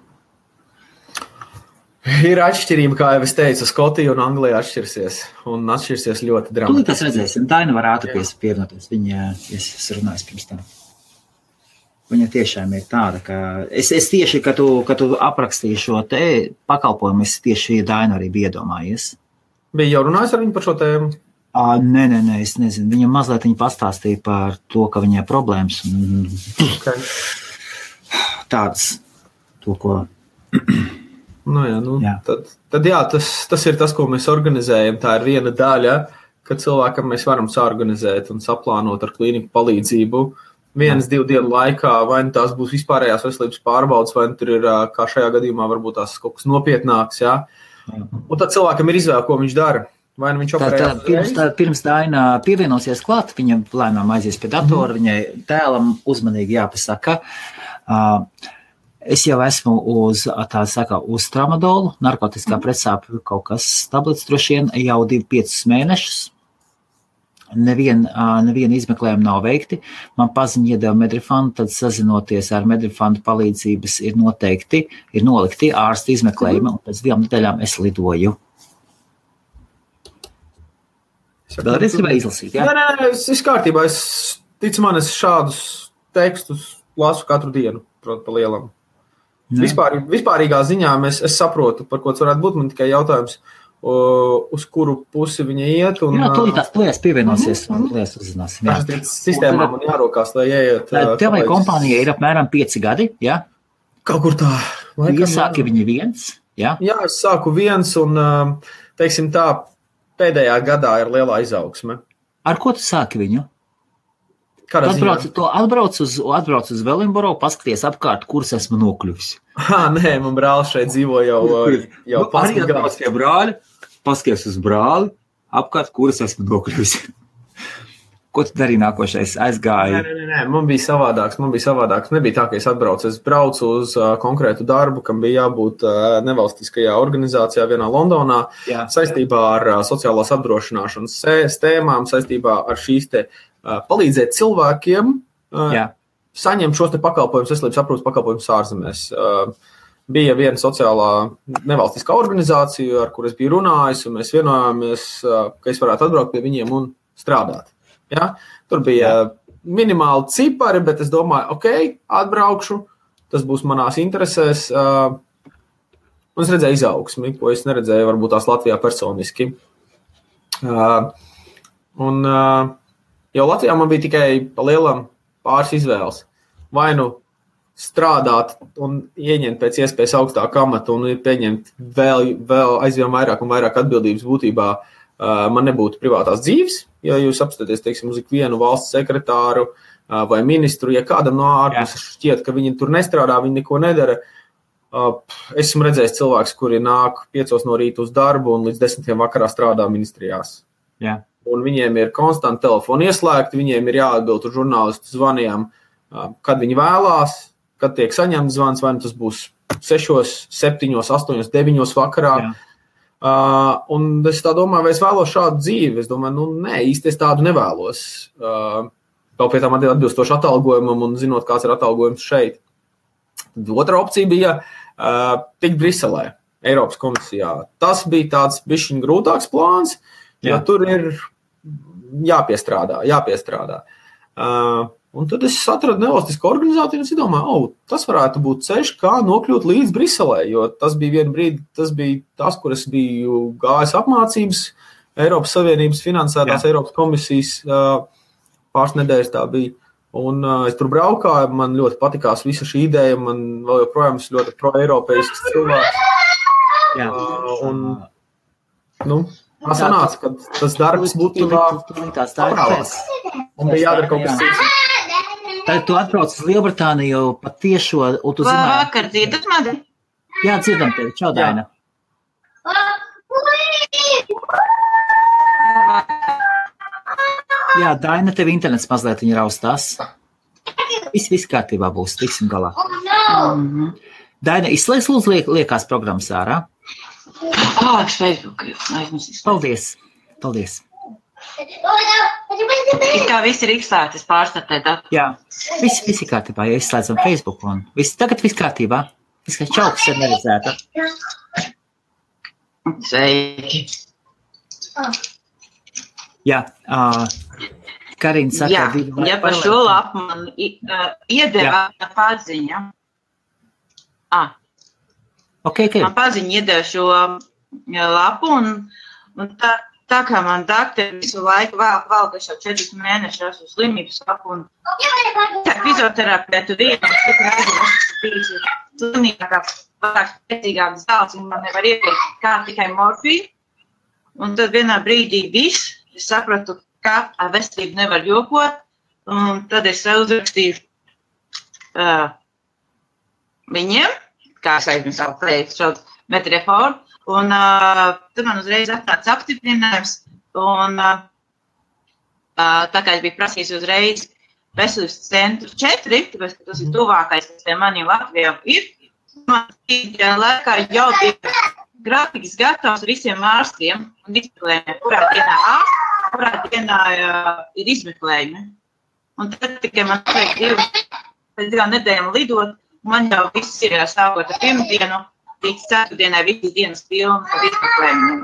Ir atšķirība, kā jau es teicu, Skotija un Anglija atšķirsies. Un atšķirsies ļoti dramatiski. Tūlīt tas redzēsim. Daina var ātri pievienoties. Viņa, es runāju pirms tam. Viņa tiešām ir tāda, ka es tieši, ka tu aprakstīji šo te pakalpojumu, es tieši Dainu arī biju iedomājies. Bija jau runājis ar viņu par šo tēmu? Nē, es nezinu. Viņa mazliet pastāstīja par to, ka viņai problēmas. Okay. Tādas, to, ko... Jā. Tad jā, tas ir tas, ko mēs organizējam. Tā ir viena daļa, ka cilvēkam mēs varam saorganizēt un saplānot ar klīniku palīdzību 1-2 dienu laikā, vai tās būs vispārējās veselības pārbaudas, vai tur ir, kā šajā gadījumā, varbūt tās kaut kas nopietnāks, jā. Un tad cilvēkam ir izvēle, ko viņš dara. Vai nu viņš operējās? Pirms Daina pievienosies klāt, viņam lēnām aizies pie datora, viņai tēlam uzmanīgi jāpasaka. Es jau esmu uz tramadolu, narkotiskā pretsāpju kaut kas tablets droši vien jau 2-5 mēnešus. Neviena izmeklējuma nav veikti. Man paziņa iedeva Medrifanu, tad sazinoties ar Medrifanu palīdzības ir nolikti ārsta izmeklējuma, un pēc 2 nedēļām es lidoju. Vēlreiz gribēju izlasīt, jā? Nē, es kārtībā. Es šādus tekstus lasu katru dienu, protams, pa lielam. Vispārīgā ziņā es saprotu, par ko tas varētu būt. Man tikai jautājums, uz kuru pusi viņa iet. Un, jā, tūlīt pievienosies un lietas uzzināsim. Sistēmā man jārokās, lai ieiet. Tev vai kompānija ir apmēram 5 gadi, jā? Kaut kur tā. Iesāki viņi 1, jā? Jā, es sāku 1 un, teiksim tā, pēdējā gadā ir lielā izaugsme. Ar ko tu sāki viņu? Tu atbrauc uz Velinboro, paskaties apkārt, kuras esmu nokļuvis. Nē, man brālis šeit dzīvo jau 15 gadus. Pie brāļa, paskaties uz brāli, apkārt, kuras esmu nokļuvis. Ko tu darīji nākošais? Aizgāji? Nē, man bija savādāks. Nebija tā, ka es atbraucu. Es braucu uz konkrētu darbu, kam bija jābūt nevalstiskajā organizācijā vienā Londonā, saistībā ar sociālās apdrošināšanas tēmām, saistībā ar šīs te palīdzēt cilvēkiem saņemt šos te pakalpojumus, veselības aprūpes pakalpojumus ārzemēs. Bija viena sociālā nevalstiskā organizācija, ar kur es biju runājis, un mēs vienojāmies, ka es varētu atbraukt pie viņiem un strādāt. Ja? Tur bija minimāli cipari, bet es domāju, atbraukšu, tas būs manās interesēs. Un es redzēju izaugsmi, ko es neredzēju varbūt tās Latvijā personiski. Jau Latvijā man bija tikai pa lielam pāris izvēles. Vai nu strādāt un ieņemt pēc iespējas augstāku amatu un pieņemt vēl aizvien vairāk un vairāk atbildības būtībā, man nebūtu privātās dzīves. Ja jūs apskatāties, teiksim, uz ikvienu valsts sekretāru vai ministru, ja kādam no ārpuses šķiet, ka viņi tur nestrādā, viņi neko nedara. Esmu redzējis cilvēks, kuri nāk 5 no rīta uz darbu un līdz 10 vakarā strādā ministrijās. Jā. Un viņiem ir konstanti telefoni ieslēgti, viņiem ir jāatbild uz žurnālistu zvaniem, kad viņi vēlās, kad tiek saņemts zvans, vai tas būs 6, 7, 8, 9 vakarā. Jā. Un es tā domāju, vai es vēlos šādu dzīvi. Es domāju, nē, īsti es tādu nevēlos. Vēl pie tām atbilstoši atalgojumam un zinot, kāds ir atalgojums šeit. Tad otra opcija bija tikt Briselē, Eiropas komisijā. Tas bija tāds bišķiņ grūtāks plāns, jo tur ir jāpiestrādā. Un tad es atradu nevalstisku organizāciju un es domāju, tas varētu būt ceļš, kā nokļūt līdz Briselē, jo tas bija vienu brīdi, tas bija tas, kur es biju gājis apmācības, Eiropas Savienības finansētās Eiropas komisijas pāris nedēļas tā bija. Un es tur braukāju, man ļoti patikās visa šī ideja, man vēl joprojām ir ļoti pro-eiropeisks cilvēks. Tā sanāca, ka tas darbs būtībā paprāvās. Un bija jādara kaut kas cits. Tad tu atbrauc uz Lielbritāniju pat tiešo, un tu zināji... Vakar dzirdat mani? Jā, dzirdam tevi. Čau, Daina. Jā, Daina, tev internets mazliet viņa raustās. Viss kārtībā būs, tiksim galā. Daina, izslēdz lūdzu liekās programmas ārā. Facebook. Paldies. Kā viss ir izslēgts, es pārstartēju. Jā, viss ir kārtībā, ja izslēdzam Facebook un tagad viss kārtībā. Viss kā čauks ir neredzēta. Sveiki. Jā, Karina saka... Ja par šo lapu man iedeva paziņa. Man paziņa iedeva šo lapu un tā kā man doktori visu laiku vēl, ka jau 4 mēnešus uz slimības lapu un fizioterapeitu vienu, es biju slimīgākā, vairāk spēcīgākas zāles, un man nevar ieteikt kā tikai morfiju. Un tad vienā brīdī es sapratu, ka ar veselību nevar jokot, un tad es uzrakstīju viņiem, kā es aizmirsu savu teikt, šo metreforu, un tad man uzreiz atnāca apstiprinājums, un tā kā es biju prasījis uzreiz veselības centru 4, tāpēc, ka tas ir tuvākais, kas pie maniem Latvijām ir, man tajā laikā jau bija grafiks gatavs visiem ārstiem un izmeklējumiem, kurā dienā ir izmeklējumi. Un tad tikai man vajag 2 nedēļām lidot, un man jau viss ir sākot ar pirmdienu, līdz 4 dienai visas dienas pilnas ar izmeklējumiem.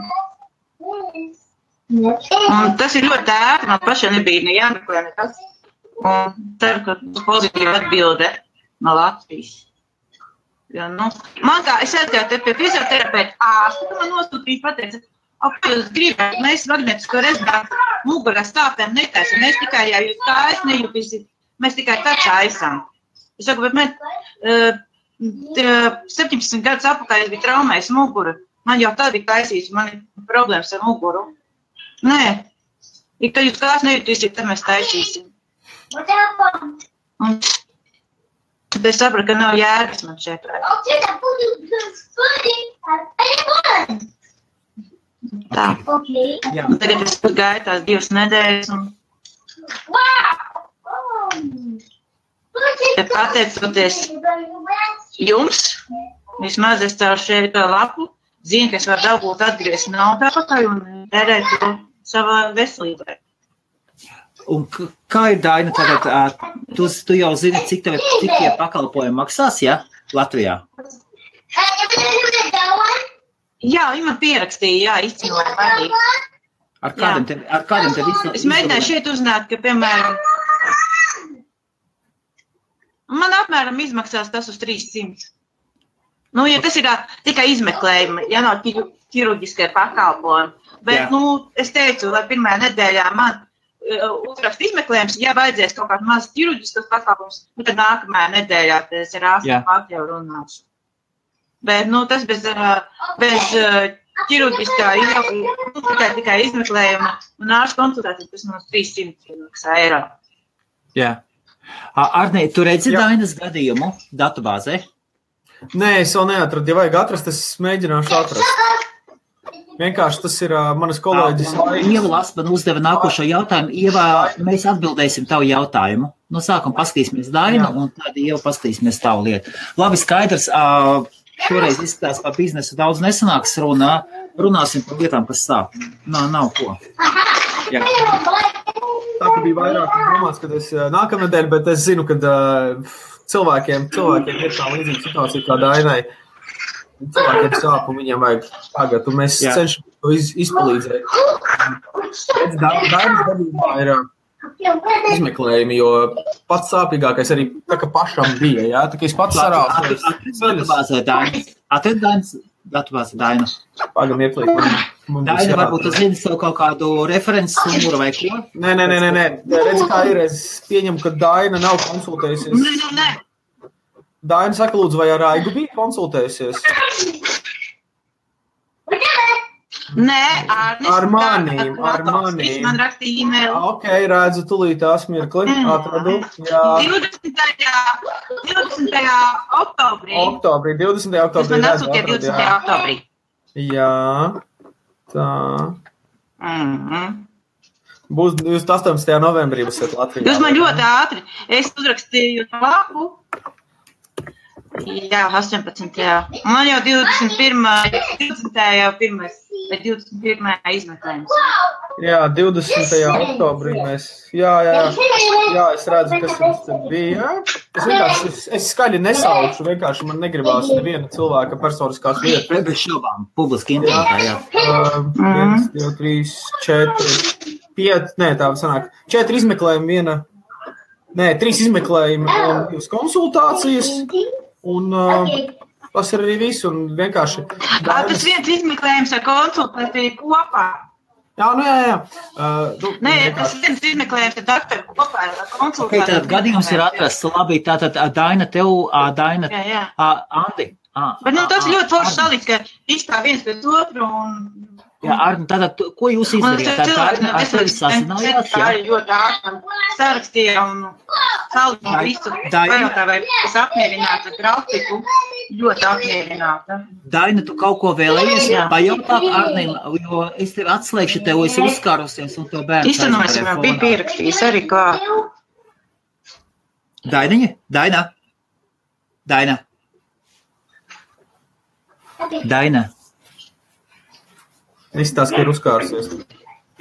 Un tas ir ļoti ērti, man pašai nebija ne jāmeklē nekas. Un ceru, ka būs pozitīva atbilde no Latvijas. Ja, man kā, es aizgāju te pie fizioterapeita ārsta, man nosūtīja pateica, ko jūs gribat, mēs magnetisko rezonanci mugurā stāpēm netaisam, mēs tikai, ja jūs kājas nejūtīsiet, mēs tikai tā taisam. Es saku, bet man 17 gadus apakaļ bija traumējis muguru, man jau tā bija taisīts, man ir problēmas ar muguru. Nē, kad jūs kājas nejūtīsiet, tad mēs taisīsim. Un tad es sapratu, ka nav jēgas man šeit. Tā. Tagad es gāju tās 2 nedēļas. Ja pateicoties jums, vismaz es caur šeit lapu, zinu, ka es varu dabūt atgriezt naudu atpakaļ un tērēt to savā veselībai. Un kā ir, Daina, tagad, tu jau zini, cik tie pakalpojumi maksās, ja, Latvijā? Jā, viņi man pierakstīja, izcinoja vadību. Ar kādiem te visam? Es mēģināju šeit uzzināt, ka, piemēram, man apmēram izmaksās tas uz 300. Ja tas ir tikai izmeklējumi, ja nav ķirurģiskie pakalpojumi. Bet, es teicu, lai pirmajā nedēļā man uzrakst izmeklējums, ja vajadzēs kaut kāds mazs ķirurģiskas pakalpojums, tad nākamajā nedēļā es ar ārstu jau runāšu. Bet, tas bez ķirurģiskā tikai izmeklējuma un ārstu konsultācijas, tas mums 300 eiro. Jā. Arnī, tu redzi Dainas gadījumu datubāzē? Nē, es vēl neatradu. Ja vajag atrast, es mēģināšu atrast. Vienkārši tas ir manas kolēģis. Ieva Lasman uzdeva nākošo jautājumu. Ieva, mēs atbildēsim tavu jautājumu. No sākuma paskatīsimies Dainu, un tad Ieva paskatīsimies tavu lietu. Labi, skaidrs. Šoreiz izskatās par biznesu daudz nesanāks runā. Runāsim par lietām, kas sāp. Nav ko. Jā. Tā ka bija vairāk domāts, kad es nākamnedēļ, bet es zinu, ka cilvēkiem ir tā līdzīga situācija kā Dainai. Cilvēkiem sāp un viņiem vajag tagad, un mēs cenšamies to izpalīdzēt. Dainas gadījumā ir izmeklējumi, jo pats sāpīgākais arī tā, ka pašam bija, jā? Tā, ka es pats sarācu. Atred Dainas datubāzē Daina. Pagam ieklīt. Daina, varbūt tu zini savu kaut kādu references numuru vai ko? Nē. Redz, kā ir, es pieņemu, ka Daina nav konsultējusies. Nē. Daina saka, lūdzu, vai ar Aigu bija konsultējusies? Nē, ar manīm. Viņš man rakstīja e-mailu. Ok, redzu, tulīt tās mirkli, atradu. Jā. 20. oktobrī. 20. oktobrī. Tas man atsūtīja 20. oktobrī. Jā, tā. Būs 18. novembrī būsiet Latvijā. Jūs man ļoti ātri. Es uzrakstīju lapu. Jā, 18. Man jau 21. izmeklējums. Jā, 20. oktobrī mēs. Jā, es redzu, kas mums te bija. Es skaļi nesaucu, vienkārši man negribās neviena cilvēka personiskās lietas. Bez šobām, publiski internetā, jā. 1, 2, 3, 4, 5, nē, tā sanāk. 4 izmeklējumi, 3 izmeklējumi un 2 konsultācijas. Un tas ir arī viss, un vienkārši... Tas viens izmeklējums ar konsultāciju kopā. Jā. Nē, tas viens izmeklējums ar doktoru kopā ar konsultāciju. Tātad gadījums ir atrasts, labi, tātad Daina tev, Jā. Andi. Bet tas ļoti forši salīdz, ka izstāv viens pēc otru un... Jā, Arni, tātad, ko jūs izdarījāt? Ar tevi sasinājāt? Tā ir ļoti ārtam. Sarakstīja un salīdz visu. Pajotā, vai es apmierināta grafiku. Ļoti apmierināta. Daina, tu kaut ko vēlējies pajautāt Arnim, jo es tevi atslēgšu, tev esi uzskārusies un tev bērns. Izsanojam, jau bija pierakstījis arī klāt. Dainiņa? Daina. Izstāst, ka ir uzkārusies.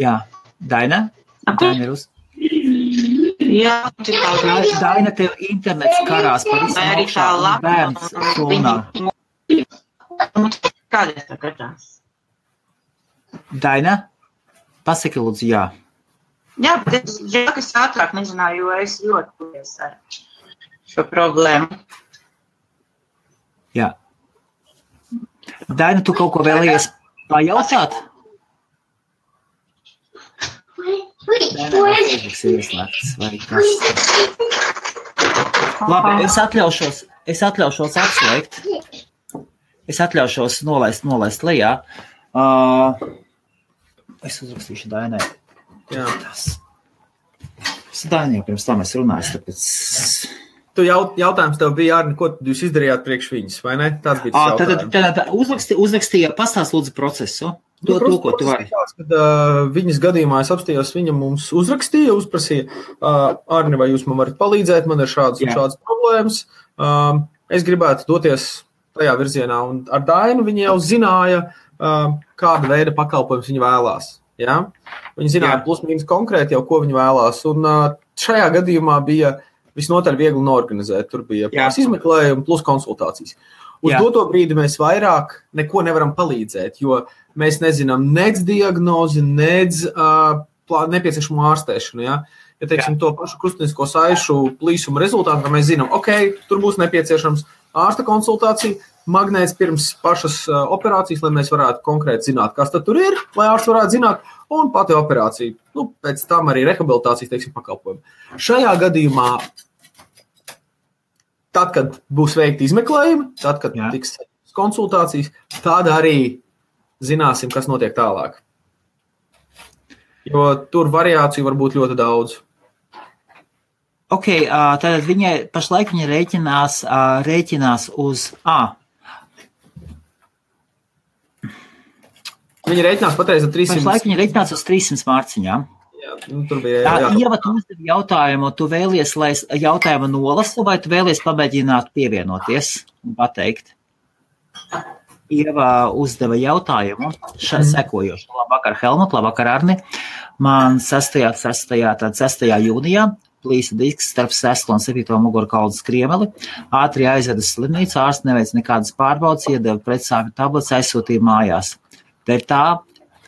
Jā. Daina ir Jā. Daina, tev internets karās par visu augšā un bērns runā. Kādēļ tā skatās? Daina, pasaki lūdzu jā. Jā, bet es ātrāk nezināju, jo es ļoti ar šo problēmu. Jā. Daina, tu kaut ko vēlies pajautāt? Labi, es atļaušos atslēgt. Es atļaušos nolaist lejā. Es uzrakstīšu Dainai. Jā. Es Dainai pirms tam es runāju, tāpēc... Jautājums tev bija, Arni, ko jūs izdarījāt priekš viņas, vai ne? Tāds bija tas jautājums. Tad uzrakstīja, pastāst lūdzu procesu. To, ko tu vari. Kad viņas gadījumā es apstījos, viņa mums uzrakstīja, uzprasīja, Arni, vai jūs man varat palīdzēt, man ir šādas problēmas. Es gribētu doties tajā virzienā, un ar Dainu viņa jau zināja, kāda veida pakalpojums viņa vēlās. Ja? Viņa zināja plus mīnus konkrēti jau, ko viņa vēlās, un šajā gadījumā bija visnotaļ viegli norganizēt. Tur bija izmeklējumi plus konsultācijas. Uz doto brīdi mēs vairāk neko nevaram palīdzēt, jo mēs nezinām nec diagnozi, nec nepieciešamo ārstēšanu. Ja, teiksim, to pašu krustinisko saišu plīsuma rezultātu, ka mēs zinām, tur būs nepieciešams ārsta konsultācija, magnēts pirms pašas operācijas, lai mēs varētu konkrēti zināt, kas tad tur ir, lai ārsts varētu zināt, un pati operācija. Pēc tam arī rehabilitācijas, teiksim, pakalpojumi. Šajā gadījumā tad, kad būs veikti izmeklējumi, tad, kad tiks konsultācijas, tad arī zināsim, kas notiek tālāk. Jo tur variāciju var būt ļoti daudz. Tātad pašlaik viņa rēķinās uz Viņa rēķinās patreiz ar 300. Pašlaik viņa rēķinās uz 300 mārciņām. Tur bija, Ieva, tu uzdevi jautājumu, tu vēlies, lai es jautājumu nolasu, vai tu vēlies pamēģināt pievienoties un pateikt? Ieva uzdeva jautājumu sekojošu. Labvakar, Helmut, labvakar, Arni. Man 6. jūnijā plīsa disks starp 6. un 7. mugurkaulu skriemeli. Ātri aizveda slimnīcu, ārsts neveic nekādas pārbaudes, iedeva pretsāpju tablets, aizsūtīja mājās. Dēļ tā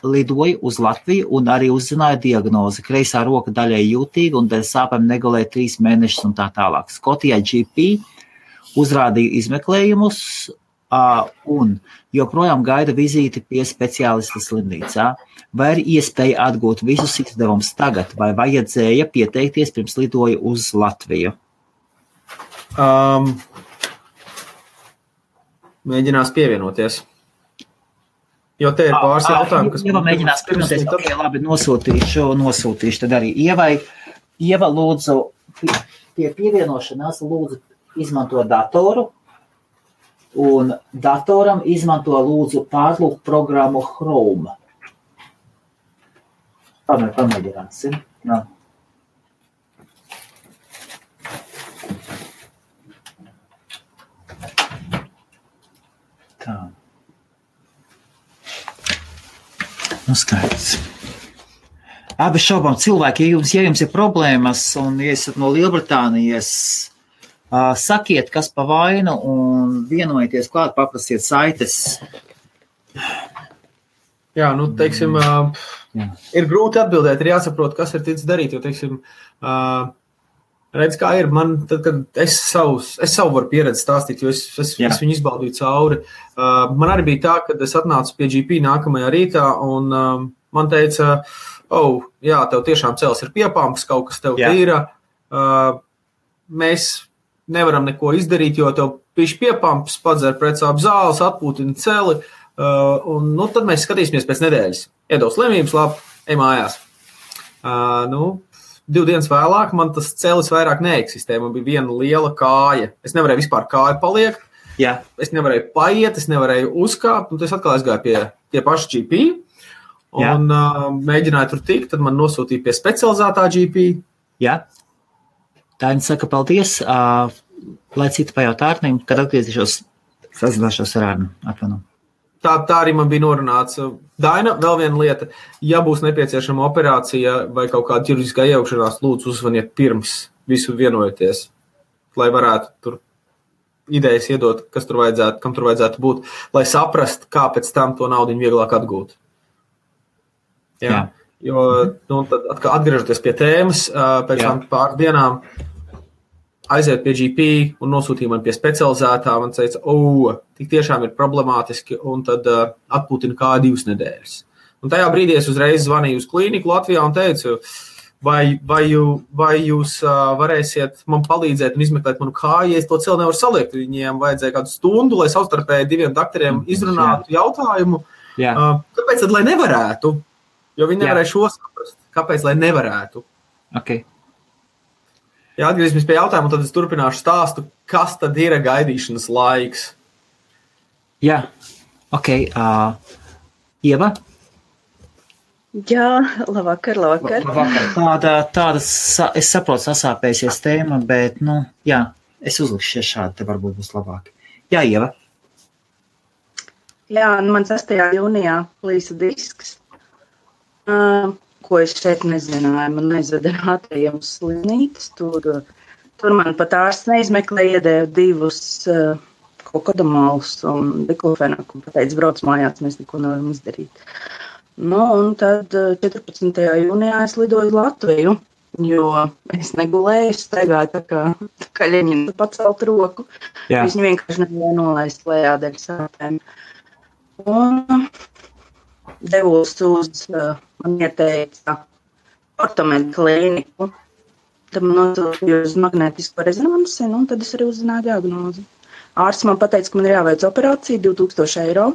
lidoja uz Latviju un arī uzzināja diagnozi. Kreisā roka daļai jūtīga un dēļ sāpēm negulēja 3 mēnešus un tā tālāk. Skotijā GP uzrādīja izmeklējumus un joprojām gaida vizīti pie speciālista slimnīcā. Vai ir iespēja atgūt visus izdevumus tagad, vai vajadzēja pieteikties pirms lidoja uz Latviju? Mēģinās pievienoties. Jo te ir pāris jautājumi, kas... Ieva mēģinās pievienoties, labi, nosūtīšu tad arī Ievai. Ieva, lūdzu, pie pievienošanās lūdzu izmanto datoru, un datoram izmanto lūdzu pārlūk programmu Chrome. Pamēģināsim. Tā. Skaidrs. Bez šaubām cilvēki, ja jums ir problēmas un ja esat no Lielbritānijas, sakiet, kas pa vainu un vienojieties klāt, paprasiet saites. Jā, teiksim, ir grūti atbildēt, ir jāsaprot, kas ir ticis darīt, jo, teiksim, redz, kā ir, man, tad, kad es savu varu pieredzi stāstīt, jo es viņu izbaudīju cauri. Man arī bija tā, kad es atnācu pie GP nākamajā rītā, un man teica, jā, tev tiešām cels ir piepamps, kaut kas tev tīra. Mēs nevaram neko izdarīt, jo tev pišķi piepamps, padzer pretsāp zāles, atpūtina celi, un tad mēs skatīsimies pēc nedēļas. Iedos slimības, labi, ej mājās. 2 dienas vēlāk man tas celis vairāk neeksistē, man bija viena liela kāja. Es nevarēju vispār kāju paliekt, es nevarēju paiet, es nevarēju uzkāpt, un es atkal aizgāju pie paša GP, un mēģināju tur tikt, tad man nosūtīja pie specializētā GP. Jā. Daina saka paldies, lai citi pajautā Arnim, kad atgriezīšos, sazināšos ar Arnu. Atvainu. Tā arī man bija norunāts. Daina, vēl viena lieta, ja būs nepieciešama operācija vai kaut kāda ķirurģiskā iejaukšanās, lūdzu uzvaniet pirms visu vienojoties, lai varētu tur idejas iedot, kas tur vajadzētu, kam tur vajadzētu būt, lai saprast, kā pēc tam to naudu vieglāk atgūt. Jā. Jo, tad atgriežoties pie tēmas, pēc tam pāris dienām aiziet pie GP un nosūtīja man pie specializētā. Man teica, tik tiešām ir problemātiski, un tad atpūtina kāju 2 nedēļas. Un tajā brīdī es uzreiz zvanīju uz klīniku Latvijā un teicu, vai jūs varēsiet man palīdzēt un izmeklēt manu kāju, ja es to celu nevaru saliekt. Viņiem vajadzēja kādu stundu, lai savstarpēji 2 doktoriem izrunātu jautājumu. Kāpēc tad, lai nevarētu? Jo viņi nevarēja šo saprast. Kāpēc, lai nevarētu? Okay. Ja atgriezīsimies pie jautājuma, tad es turpināšu stāstu, kas tad ir gaidīšanas laiks. Jā, ok. Ieva? Jā, labvakar. Tāda, es saprotu, sasāpēsies tēma, bet, es uzlikšu šādi, te varbūt būs labāk. Jā, Ieva? Jā, man 6. jūnijā plīsa disks, ko es šeit nezināju. Man aizveda ātriem uz slimnīcas, tur man pat ārsts neizmeklēja, iedēja 2 kokodamālus un diklofenaku, un pateica, brauc mājās, mēs neko nevaram izdarīt. Un tad 14. jūnijā es lidoju uz Latviju, jo es negulēju, es staigāju tā kā Ļeņina pacelt roku. Es viņu vienkārši nevarēju nolaist lejā dēļ sāpēm. Un devos uz, man ieteica ortomedu klīniku. Tad man nosūtīja uz magnētisko rezonansi, un tad es arī uzzināju diagnozi. Ārsts man pateica, ka man ir jāveic operācija 2000 eiro,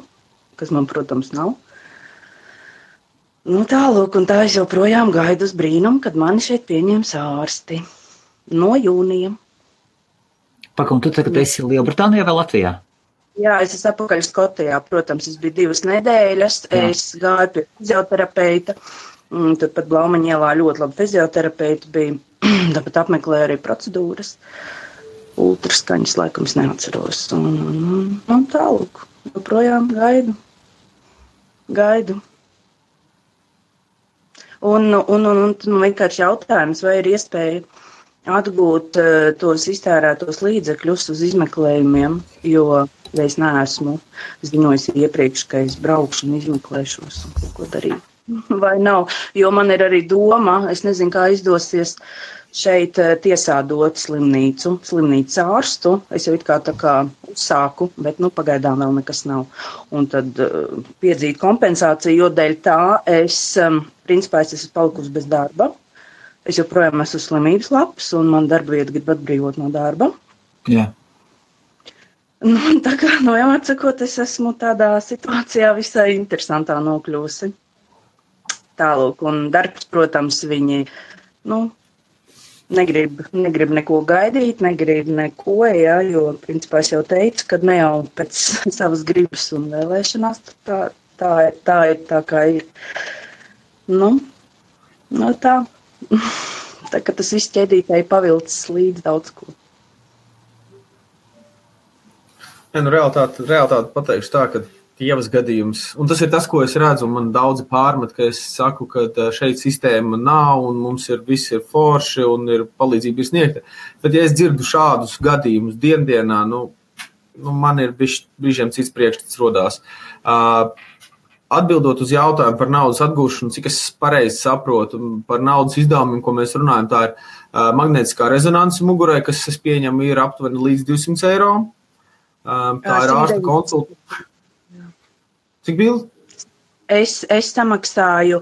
kas man, protams, nav. Tālūk, un tā es joprojām gaidu uz brīnumu, kad mani šeit pieņems ārsti no jūnija. Un tu tagad esi Lielbritānijā vai Latvijā? Jā, es esmu atpakaļ Skotijā. Protams, es biju 2 nedēļas. Es gāju pie fizioterapeita. Tad pat Blaumaņa ielā ļoti labi fizioterapeiti bija. Tāpat apmeklēju arī procedūras. Ultraskaņas laikam es neatceros. Un tālūk, joprojām gaidu. Un vienkārši jautājums, vai ir iespēja atgūt tos iztērētos līdzekļus uz izmeklējumiem, jo es neesmu ziņojis iepriekš, ka es braukšu un izmeklēšos un kaut ko darīt. Vai nav? Jo man ir arī doma, es nezinu, kā izdosies šeit tiesādot slimnīcas ārstu. Es jau it kā tā kā uzsāku, bet pagaidām vēl nekas nav. Un tad piedzīt kompensāciju, jo dēļ tā principā es esmu palikusi bez darba. Es joprojām esmu slimības lapas, un man darba vieta grib atbrīvot no darba. Jā. Tā kā, atsakot, es esmu tādā situācijā visai interesantā nokļūsi. Tālūk, un darbs, protams, viņi, negrib neko gaidīt, negrib neko, jo, principā, es jau teicu, ka ne jau pēc savas gribas un vēlēšanās, tā ir tā, kā ir. Tā. Tā kā tas viss ķēdītēji pavilcis līdz daudz ko. Realitāte pateikšu tā, ka Ievas gadījums, un tas ir tas, ko es redzu, un man daudzi pārmet, ka es saku, ka šeit sistēma nav, un mums viss ir forši, un ir palīdzība ir sniegta. Bet ja es dzirdu šādus gadījumus dienā, man ir brīžiem cits priekšstats rodās. Atbildot uz jautājumu par naudas atgūšanu, cik es pareizi saprotu, par naudas izdevumiem, ko mēs runājam, tā ir magnētiskā rezonanse mugurai, kas, es pieņemu, ir aptuveni līdz 200 eiro. Tā ir ārsta konsultācija. Cik bija? Es samaksāju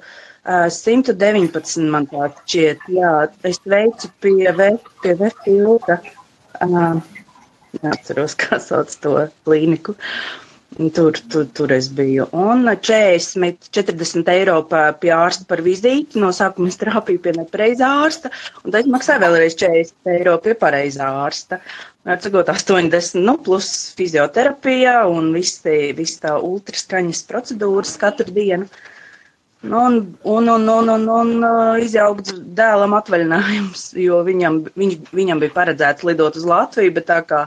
119, man tā šķiet. Jā, es veicu pie Vefilta. Neatceros, kā sauc to klīniku. Tur es biju. Un 40 eiro pie ārsta par vizīti. No sākuma es trāpīju pie nepareizā ārsta, un tad maksāju vēlreiz 40 eiro pie pareizā ārsta. Atsakot 80, plus fizioterapija un viss tā ultraskaņas procedūras katru dienu. Un izjaukts dēlam atvaļinājums, jo viņam bija paredzēts lidot uz Latviju, bet tā kā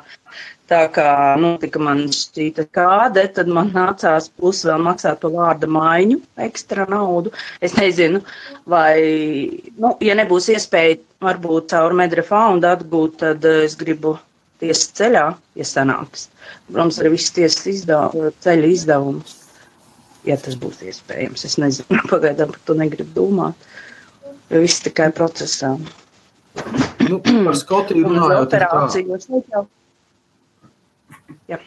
tika man šķīta kāde, tad man nācās plus vēl maksāt par vārda maiņu, ekstra naudu. Es nezinu, vai, ja nebūs iespēja varbūt caur Medrefoundu atgūt, tad es gribu tiesas ceļā, ja sanāks. Protams, arī viss tiesas ceļa izdevumus, ja tas būs iespējams. Es nezinu, pagaidām par to negribu domāt, jo viss tikai procesā. Par Skotiju runājot. Jā.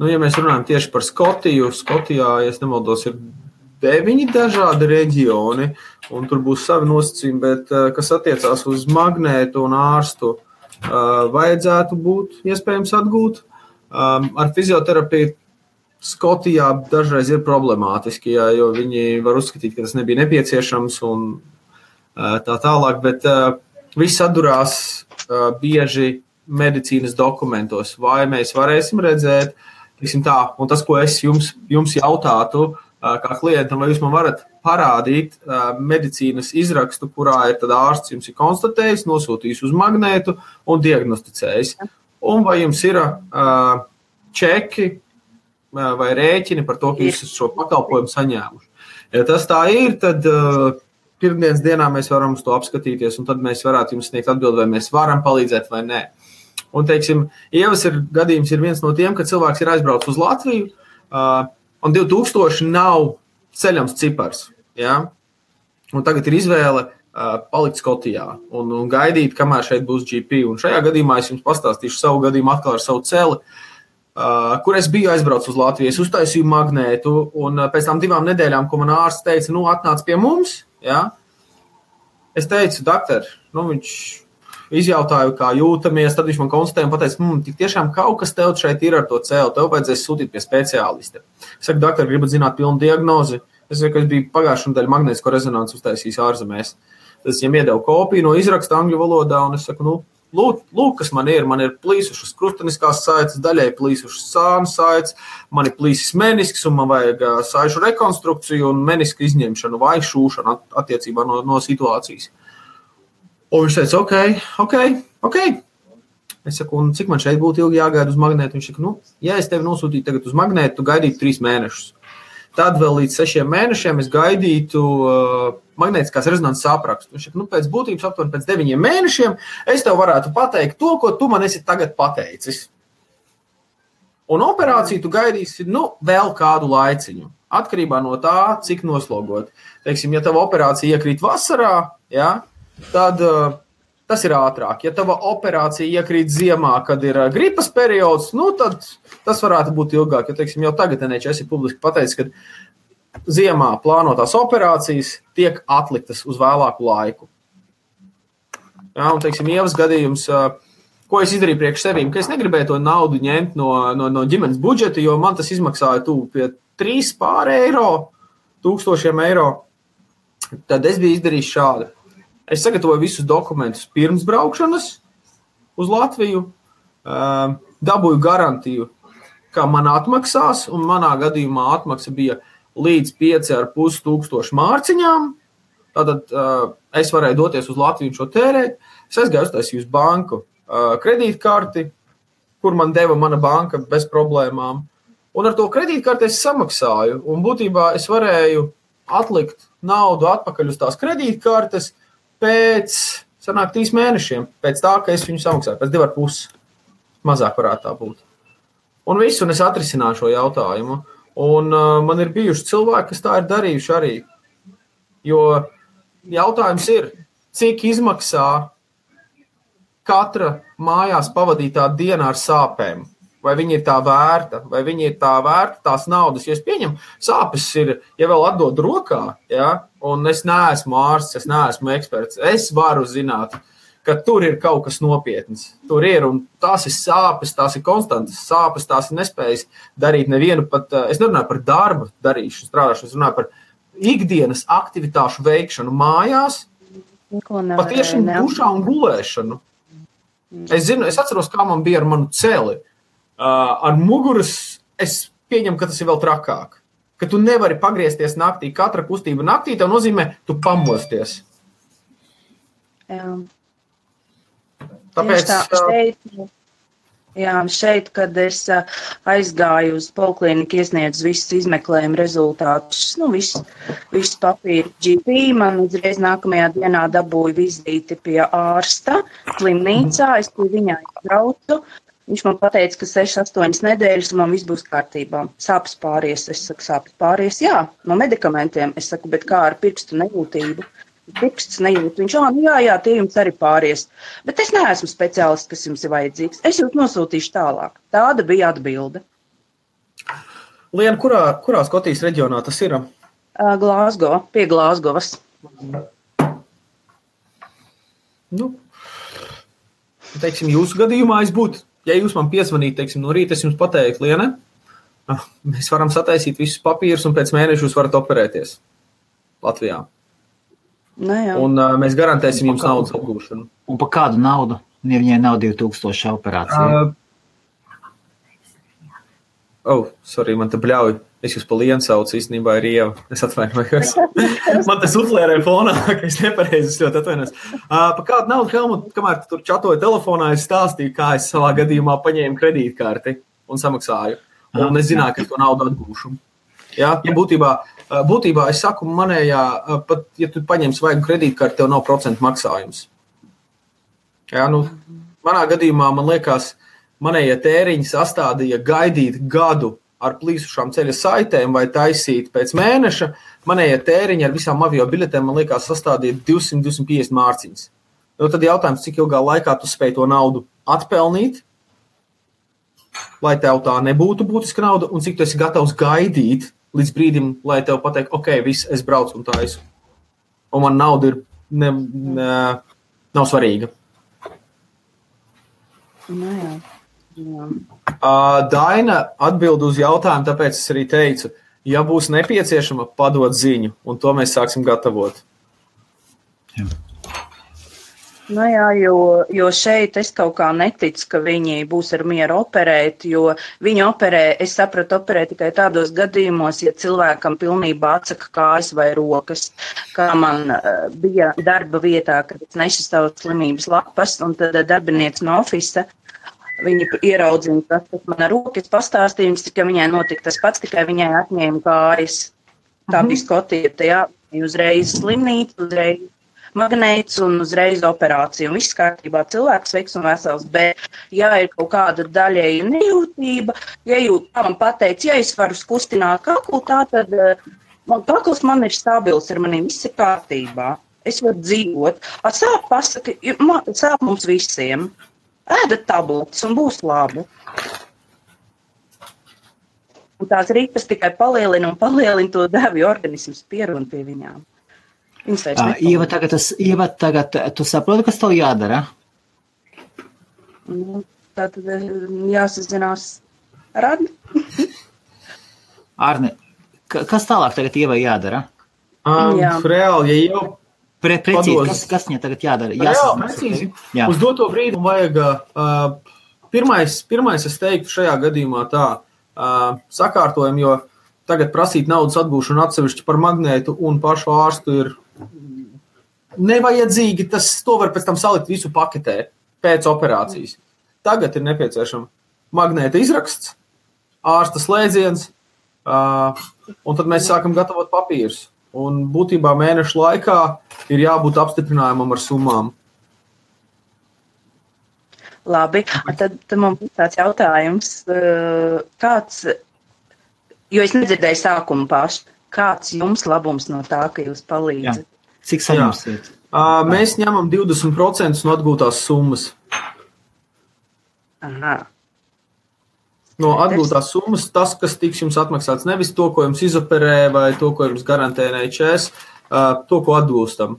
Ja mēs runājam tieši par Skotiju, Skotijā, ja es nemaldos, ir 9 dažādi reģioni, un tur būs savi nosacījumi, bet kas attiecās uz magnētu un ārstu, vajadzētu būt iespējams atgūt. Ar fizioterapiju Skotijā dažreiz ir problemātiski, jo viņi var uzskatīt, ka tas nebija nepieciešams un tā tālāk, bet viss atdurās bieži medicīnas dokumentos, vai mēs varēsim redzēt, tā, un tas, ko es jums jautātu, kā klientam, vai jūs man varat parādīt medicīnas izrakstu, kurā ir tad ārsts jums ir konstatējis, nosūtījis uz magnētu un diagnosticējis. Un vai jums ir čeki vai rēķini par to, ka jūs šo pakalpojumu saņēmuši. Ja tas tā ir, tad pirmdienas dienā mēs varam uz to apskatīties, un tad mēs varētu jums sniegt atbildi, vai mēs varam palīdzēt vai nē. Un, teiksim, Ievas gadījums ir viens no tiem, ka cilvēks ir aizbraucis uz Latviju, un 2000 nav ceļams cipars. Ja? Un tagad ir izvēle palikt Skotijā un gaidīt, kamēr šeit būs GP. Un šajā gadījumā es jums pastāstīšu savu gadījumu atkal ar savu celi, kur es biju aizbraucis uz Latviju. Es uztaisīju magnētu, un pēc tam 2 nedēļām, ko man ārsts teica, atnāc pie mums, ja? Es teicu, doktor, viņš izjautāju, kā jūtamies, tad viņš man konstatēja un pateica, tik tiešām kaut kas tev šeit ir ar to cēlu, tev vajadzēs sūtīt pie speciālista. Es saku, doktor, gribat zināt pilnu diagnozi? Es saku, ka es biju pagājušajā nedēļā magnētisko rezonanci uztaisījis ārzemēs. Tad es viņam iedevu kopiju no izraksta angļu valodā, un es saku, lūk, kas man ir plīsušas krusteniskās saites, daļai plīsušas sānu saites, man ir plīsis menisks, un man vajag saišu rekonstrukciju un meniska izņemšanu vai šūšanu attiecībā no situācijas. Un viņš teica, ok. Es saku, un cik man šeit būtu ilgi jāgaida uz magnētu? Viņš saka, ja es tevi nosūtītu tagad uz magnētu, tu gaidītu 3 mēnešus. Tad vēl līdz 6 mēnešiem es gaidītu magnētiskās rezonances aprakstu. Viņš saka, pēc būtības aptuveni pēc 9 mēnešiem es tev varētu pateikt to, ko tu man esi tagad pateicis. Un operāciju tu gaidīsi, vēl kādu laiciņu. Atkarībā no tā, cik noslogot. Teiksim, ja tava operācija iekrīt vasarā, ja, tad tas ir ātrāk. Ja tava operācija iekrīt ziemā, kad ir gripas periods, tad tas varētu būt ilgāk. Jo, teiksim, jau tagad NHS ir publiski pateicis, ka ziemā plānotās operācijas tiek atliktas uz vēlāku laiku. Ja, un, teiksim, Ievas gadījums, ko es izdarīju priekš sevīm, ka es negribēju to naudu ņemt no ģimenes budžeta, jo man tas izmaksāja pie 3 eiro, 1000 eiro. Tad es biju izdarījis šādi. Es sagatavoju visus dokumentus pirms braukšanas uz Latviju, dabūju garantiju, ka man atmaksās, un manā gadījumā atmaksa bija līdz 5500 mārciņām. Tātad es varēju doties uz Latviju un šo tērēt. Es aizgāju uztaisīju uz banku kredītkarti, kur man deva mana banka bez problēmām. Un ar to kredītkarti es samaksāju, un būtībā es varēju atlikt naudu atpakaļ uz tās kredītkartes pēc 3 mēnešiem, pēc tā, ka es viņu samaksāju, pēc 2,5 mazāk varētu tā būt. Un visu, un es atrisināju šo jautājumu. Un man ir bijuši cilvēki, kas tā ir darījuši arī. Jo jautājums ir, cik izmaksā katra mājās pavadītā diena ar sāpēm? Vai viņi ir tā vērta, tās naudas, jo es pieņemu, sāpes ir, ja vēl atdod rokā, ja, un es neesmu ārsts, es neesmu eksperts, es varu zināt, ka tur ir kaut kas nopietns. Tur ir, un tās ir sāpes, tās ir konstantas sāpes, tās ir nespējas darīt nevienu pat, es nerunāju par darba darīšanu, strādāšanu, es runāju par ikdienas aktivitāšu veikšanu mājās, patiešām dušā un gulēšanu. Es atceros, kā man bija ar manu celi. Ar muguras es pieņemu, ka tas ir vēl trakāk. Ka tu nevari pagriezties naktī. Katra kustība naktī tev nozīmē, tu pamosties. Jā. Tāpēc... Šeit, kad es aizgāju uz polikliniku, iesniedzu visus izmeklējumu rezultātus, visus papīru GP, man uzreiz nākamajā dienā dabūju vizīti pie ārsta slimnīcā, es pie viņā braucu. Viņš man pateica, ka 6-8 nedēļas un man viss būs kārtībā. Sāpes pāries. Es saku, sāpes pāries, jā, no medikamentiem. Es saku, bet kā ar pirkstu nejūtību? Pirksts nejūt. Viņš, jā, tie jums arī pāries. Bet es neesmu speciālists, kas jums ir vajadzīgs. Es jūs nosūtīšu tālāk. Tāda bija atbilde. Liena, kurā Skotijas reģionā tas ir? Glāzgo, pie Glāzgovas. Nu, teiksim, jūsu gadījumā es būtu, ja jūs man piezvanītu, teiksim, no rīta es jums pateiktu, Liena, mēs varam sataisīt visus papīrus un pēc mēneša jūs varat operēties Latvijā. Un mēs garantēsim jums naudas atgūšanu. Un par kādu naudu? Ja viņai nav 2000 operācija? Sorry, man te bļauj. Es jūs pa Lienu saucu, īstenībā ir Ieva. Es atvainojos. Man te suflērē fonā, ka es nepareizi, es ļoti atvainojos. Par kādu naudu, Helmut, kamēr tu tur čatoju telefonā, es stāstīju, kā es savā gadījumā paņēmu kredītkarti un samaksāju. Un es zināju, ka es to naudu atgūšu. Ja, būtībā es saku, manējā, pat ja tu paņem svaigu kredītkarti, tev nav procentu maksājums. Ja, manā gadījumā, man liekas, manējie tēriņi sastādīja gaidīt gadu ar plīsušām ceļa saitēm vai taisīt pēc mēneša. Manējie tēriņi ar visām avio biļetēm, man liekas, sastādīja 200-250 mārciņas. Tad jautājums, cik ilgā laikā tu spēj to naudu atpelnīt, lai tev tā nebūtu būtiska nauda, un cik tu esi gatavs gaidīt līdz brīdim, lai tev pateikt, ok, viss, es braucu un taisu. Un man nauda nav svarīga. Jā. Daina atbild uz jautājumu, tāpēc es arī teicu, ja būs nepieciešama, padod ziņu, un to mēs sāksim gatavot. Jā. Jā, jo šeit es kaut kā neticu, ka viņi būs ar mieru operēt, jo viņi operē, es sapratu, operē tikai tādos gadījumos, ja cilvēkam pilnībā atsaka kājas vai rokas, kā man bija darba vietā, kad es nešu savu slimības lapas, un tad darbinieks no ofisa, viņi ieraudzina tas, kas man ar rokas pastāstījums, ka viņai notika tas pats, tikai viņai atņēma kājas. Tā bija Skotija, jā, uzreiz slimnīca, uzreiz magnēts un uzreiz operācija. Un viss kārtībā, cilvēks veiks un vesels, bet ja ir kaut kāda daļēja nejūtība, ja man pateic, ja es varu kustināt kaklu, tā tad kakls man ir stabils, ar maniem viss ir kārtībā. Es varu dzīvot. Sāp pasaka, sāp mums visiem. Ēdat tabletes un būs labi. Un tās ripas tikai palielina to devi, organisms pierun pie viņām. Ieva, tagad tu saproti, kas tev jādara? Tātad jāsazinās ar Arni. Arni, kas tālāk tagad Ievai jādara? Reāli, ja jau precīzi, kas viņai tagad jādara? Reāli, precīzi. Uz doto brīdi vajag, pirmais es teiktu šajā gadījumā tā, sakārtojumu, jo tagad prasīt naudas atgūšanu atsevišķi par magnētu un pašu ārstu ir nevajadzīgi, to var pēc tam salikt visu paketē pēc operācijas. Tagad ir nepieciešama magnēta izraksts, ārsta slēdziens, un tad mēs sākam gatavot papīrus. Un būtībā mēnešu laikā ir jābūt apstiprinājumam ar summām. Labi, tad man būs tāds jautājums, kāds, jo es nedzirdēju sākumu pašu, kāds jums labums no tā, ka jūs palīdzat? Cik saņemsiet? Mēs ņemam 20% no atgūtās summas. Aha. No atgūtās summas tas, kas tiks jums atmaksāts, nevis to, ko jums izoperē vai to, ko jums garantē NHS, to, ko atgūstam.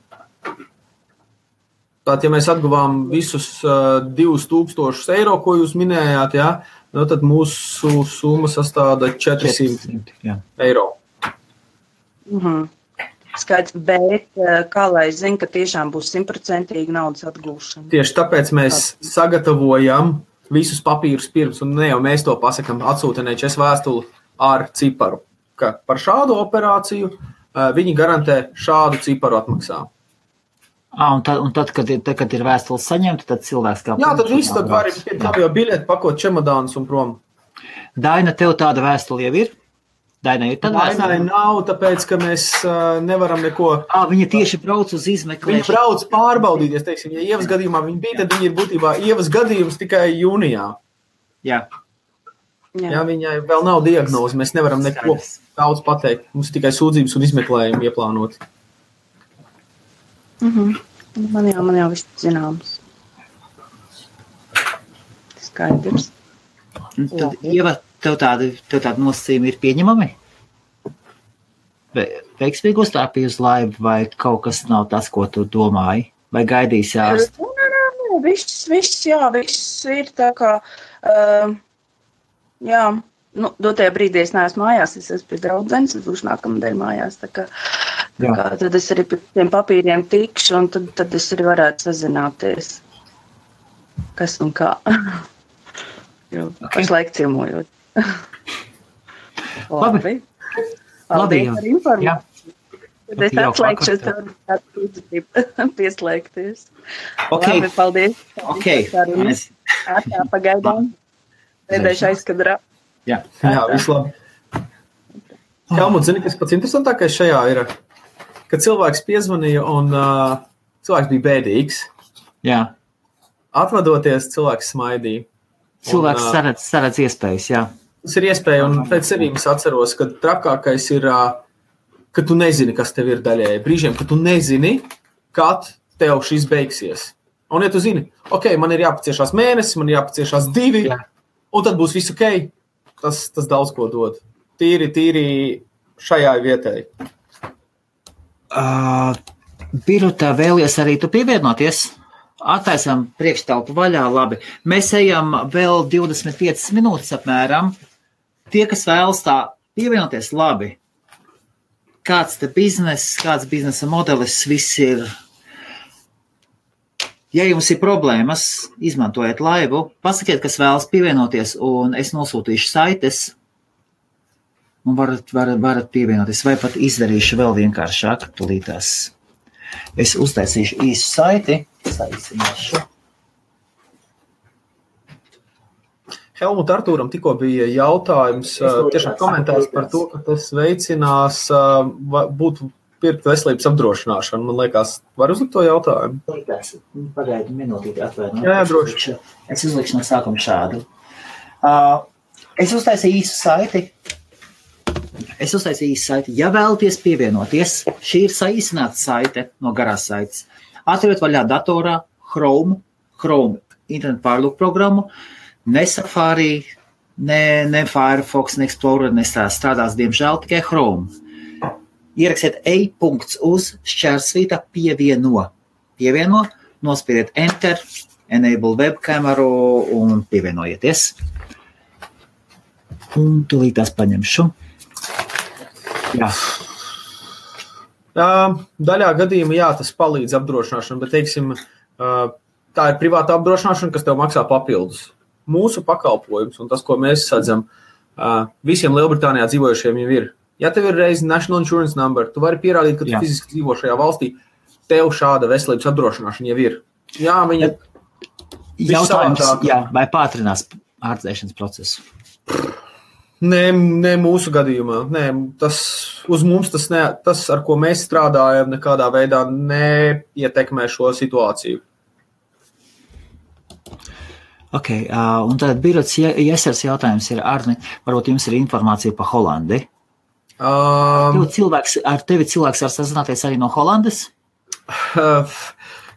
Tātad, ja mēs atguvām visus 2000 eiro, ko jūs minējāt, tad mūsu summa sastāda 400 eiro. Skaidrs, bet kā lai zina, ka tiešām būs 100% naudas atgūšana? Tieši tāpēc mēs sagatavojam visus papīrus pirms, un ne jau mēs to pasakam, atsūta NHS vēstuli ar ciparu, ka par šādu operāciju viņi garantē šādu ciparu atmaksā. Un tad, kad ir vēstules saņemta, tad cilvēks kā... Jā, tad viss, tad var jau biļeti pakot čemodānus un prom. Daina, tev tāda vēstule jau ir? Dainai ir tāda vēstule? Dainai nav, tāpēc, ka mēs nevaram neko... Viņa tieši brauc uz izmeklēšanu. Viņa brauc pārbaudīties, teiksim, ja Ievas gadījumā viņa bija, tad viņa ir būtībā Ievas gadījums tikai jūnijā. Jā. Jā, viņai vēl nav diagnoze, mēs nevaram neko daudz pateikt. Mums tikai sūdzības un izmeklējumi ieplānoti. Man jau viss zināms. Skaidrs. Tad, Ieva, tev tādi nosacījumi ir pieņemami? Veiksmīgi uzstāpīji uz laivu, vai kaut kas nav tas, ko tu domāji? Vai gaidīsi ārstu? Viss ir tā kā, dotajā brīdī es neesmu mājās, es esmu pie draudzenes, es būšu nākamnedēļ mājās, tā kā tad es arī pie tiem papīriem tikšu, un tad es arī varētu sazināties, kas un kā, jo pašlaik ciemojot. Labi. Paldies par informāciju. Tad es atslēgšu, es tev pieslēgties. Labi, paldies. Atā pagaidām. Pēdējais aizkadrā. Jā, visu labi. Helmut, zini, kas pats interesantākais šajā ir, ka cilvēks piezvanīja un cilvēks bija bēdīgs. Jā. Atvadoties, cilvēks smaidīja. Cilvēks saredz iespējas, jā. Tas ir iespēja, un pēc cerības atceros, ka trakākais ir, ka tu nezini, kas tev ir daļēji. Brīžiem, ka tu nezini, kad tev šis beigsies. Un ja tu zini, ok, man ir jāpaciešās mēnesis, man ir jāpaciešās 2, un tad būs viss ok, tas daudz ko dod. Tīri šajā vietai. Birutā, vēlies arī tu pievienoties? Attaisam priekštelpu vaļā, labi. Mēs ejam vēl 25 minūtes apmēram. Tie, kas vēlas tā pievienoties, labi. Kāds te bizness, kāds biznesa modelis, viss ir. Ja jums ir problēmas, izmantojiet laivu, pasakiet, kas vēlas pievienoties, un es nosūtīšu saites, un varat pievienoties, vai pat izdarīšu vēl vienkāršāk, tulītās. Es uztaisīšu īsu saiti, saīsināšu. Helmut, Artūram tikko bija jautājums, tiešām komentārs par to, ka tas veicinās būtu pirkt veselības apdrošināšanu. Man liekas, var uzlikt to jautājumu? Pagaidu minūtīti atvainot. Jā, droši. Es uzlikšu no sākuma šādu. Es uztaisīju īsu saiti. Ja vēlaties pievienoties, šī ir saīsināta saite no garās saites. Atveriet vaļā datorā Chrome internetu pārlūku programmu, ne Safari, ne Firefox, ne Explorer, strādās, diemžēl, tikai Chrome. Ierakstiet /uz/pievieno. Pievieno, nospiediet Enter, enable webkameru un pievienojieties. Un tūlīt tās paņemšu. Jā. Daļā gadījumā, tas palīdz apdrošināšanu, bet, teiksim, tā ir privāta apdrošināšana, kas tev maksā papildus. Mūsu pakalpojums un tas, ko mēs sadzam, visiem Lielbritānijā dzīvojušiem jau ir. Ja tev ir reizi National Insurance Number, tu vari pierādīt, ka tu fiziski dzīvo šajā valstī, tev šāda veselības apdrošināšana jau ir. Jā, viņa... Jautājums, vai pātrinās ārstēšanas procesu? Nē, mūsu gadījumā. Nē, uz mums tas, ar ko mēs strādājam, nekādā veidā neietekmē šo situāciju. Ok, un tad Birots Jesers jautājums ir, Arni, varbūt jums ir informācija par Holandi? Ar tevi cilvēks var sazināties arī no Holandes?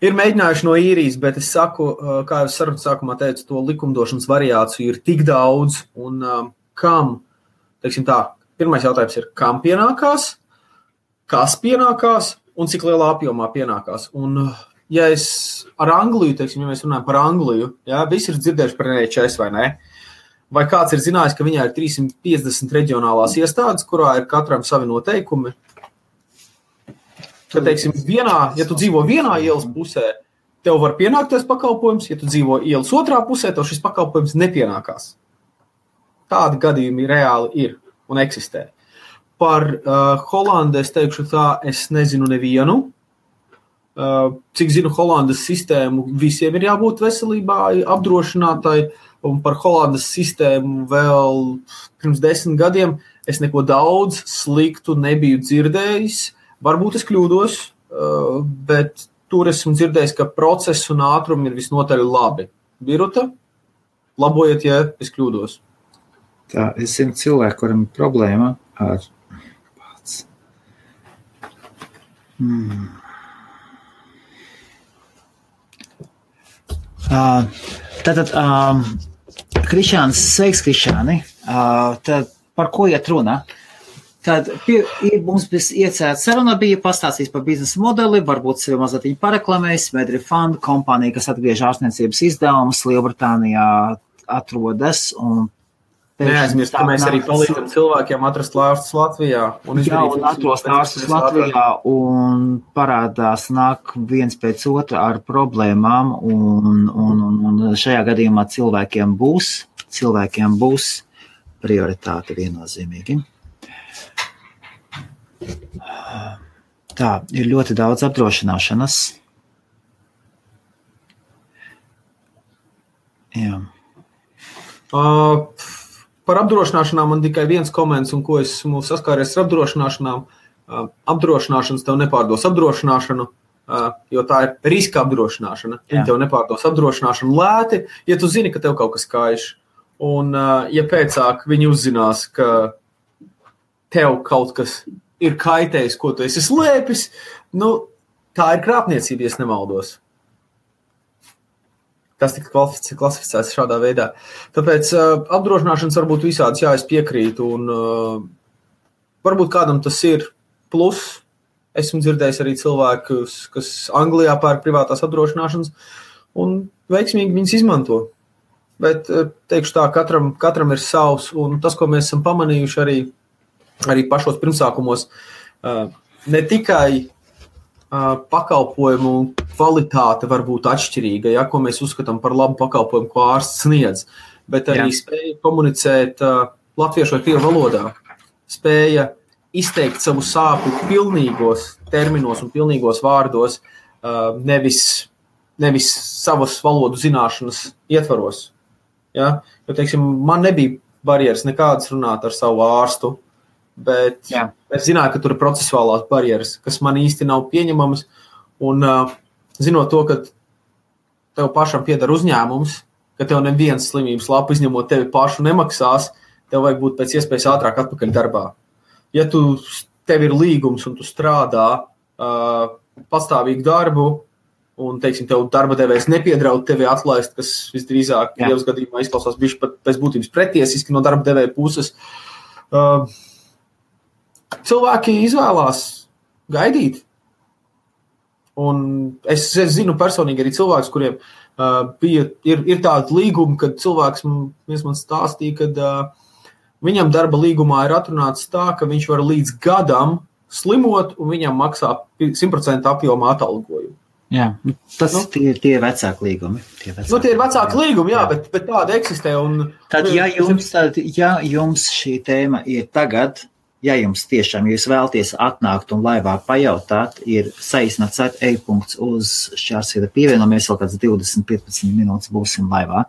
Ir mēģinājuši no īrijas, bet es saku, kā jau sarunas sākumā teicu, to likumdošanas variāciju ir tik daudz, un kam, teiksim tā, pirmais jautājums ir, kam pienākās, kas pienākās un cik lielā apjomā pienākās. Un, ja es ar Angliju, teiksim, ja mēs runājam par Angliju, visi ir dzirdējuši par NHS vai ne? Vai kāds ir zinājis, ka viņā ir 350 reģionālās iestādes, kurā ir katram savi noteikumi? Ka, teiksim, ja tu dzīvo vienā ielas pusē, tev var pienākties pakalpojums, ja tu dzīvo ielas otrā pusē, tev šis pakalpojums nepienākās. Tādi gadījumi reāli ir un eksistē. Par Holandi es teikšu tā, es nezinu nevienu. Cik zinu Holandas sistēmu, visiem ir jābūt veselībā apdrošinātai, un par Holandas sistēmu vēl pirms 10 gadiem es neko daudz sliktu nebiju dzirdējis. Varbūt es kļūdos, bet tur esmu dzirdējis, ka process un ātrumi ir visnotaļ labi. Biruta, labojiet, ja es kļūdos. Tā, es zinu cilvēku, kuram ir problēma ar pats. Tātad, Krišāns, sveiks, Krišāni. Tad par ko iet runa? Tad mums iecēta saruna bija pastāstījis par biznesa modeli, varbūt sevi mazliet pareklamējis, Medrefund kompānija, kas atgriež ārstniecības izdevumus, Lielbritānijā atrodas. Neaizmirst, ka mēs arī palīdzam cilvēkiem atrast ārstus Latvijā. Un atrast ārstus Latvijā un parādās nāk viens pēc otra ar problēmām un šajā gadījumā cilvēkiem būs prioritāte viennozīmīgi. Tā, ir ļoti daudz apdrošināšanas. Jā. Par apdrošināšanām man tikai viens komentārs, un ko esmu saskāries ar apdrošināšanām. Apdrošināšanas tev nepārdos apdrošināšanu, jo tā ir riska apdrošināšana. Viņi tev nepārdos apdrošināšanu lēti, ja tu zini, ka tev kaut kas kaiš. Un, ja pēcāk viņi uzzinās, ka tev kaut kas ir kaitējis, ko tu esi slēpis, tā ir krāpniecība, ja nemaldos. Tas tika klasificēts šādā veidā. Tāpēc apdrošināšanas varbūt visādas, jā, es piekrītu, un varbūt kādam tas ir plus. Esmu dzirdējis arī cilvēkus, kas Anglijā pērk privātās apdrošināšanas, un veiksmīgi viņas izmanto. Bet teikšu tā, katram ir savs, un tas, ko mēs esam pamanījuši arī pašos pirmsākumos, ne tikai pakalpojumu kvalitāte var būt atšķirīga, ja, ko mēs uzskatām par labu pakalpojumu, ko ārsts sniedz, bet arī spēja komunicēt latviešu vai krievu valodā, spēja izteikt savu sāpju pilnīgos terminos un pilnīgos vārdos, nevis savas valodu zināšanas ietvaros. Ja? Jo, teiksim, man nebija barjeras nekādas runāt ar savu ārstu, bet es zināju, ka tur ir procesuālās barjeras, kas man īsti nav pieņemamas, un zinot to, ka tev pašam pieder uzņēmums, ka tev neviens slimības lapu izņemot tevi pašu nemaksās, tev vajag būt pēc iespējas ātrāk atpakaļ darbā. Ja tev ir līgums un tu strādā pastāvīgu darbu, un, teiksim, tev darba devējs nepiedraud tevi atlaist, kas visdrīzāk Dievs gadījumā izklausās bišķi pat pēc būtības pretiesiski no darba devēja puses, cilvēki izvēlās gaidīt. Un es zinu personīgi arī cilvēkus, kuriem ir tāda līguma, kad cilvēks man stāstīja, kad viņam darba līgumā ir atrunāts tā, ka viņš var līdz gadam slimot un viņam maksā 100% apjomā atalgojumu. Jā, tie ir vecāki līgumi. Tie ir vecāki līgumi, jā, bet tāda eksistē. Un, tad, ja jums šī tēma ir tagad, ja jums tiešām jūs vēlties atnākt un laivā pajautāt, ir saīsināts e-punkts uz Šķārsvieta pievienojamies, vēl kāds 20-15 minūtes būsim laivā.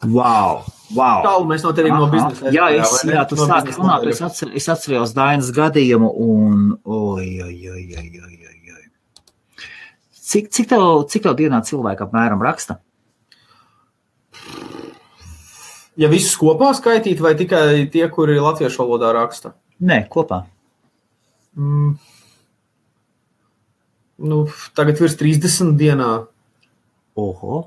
Wow! Tālu mēs no tevīm no biznesa. Jā, tu sāki runāt, es atcerējos Dainas gadījumu un Cik tev dienā cilvēki apmēram raksta? Ja visus kopā skaitīt, vai tikai tie, kuri latviešu valodā raksta? Nē, kopā. Tagad virs 30 dienā. Oho.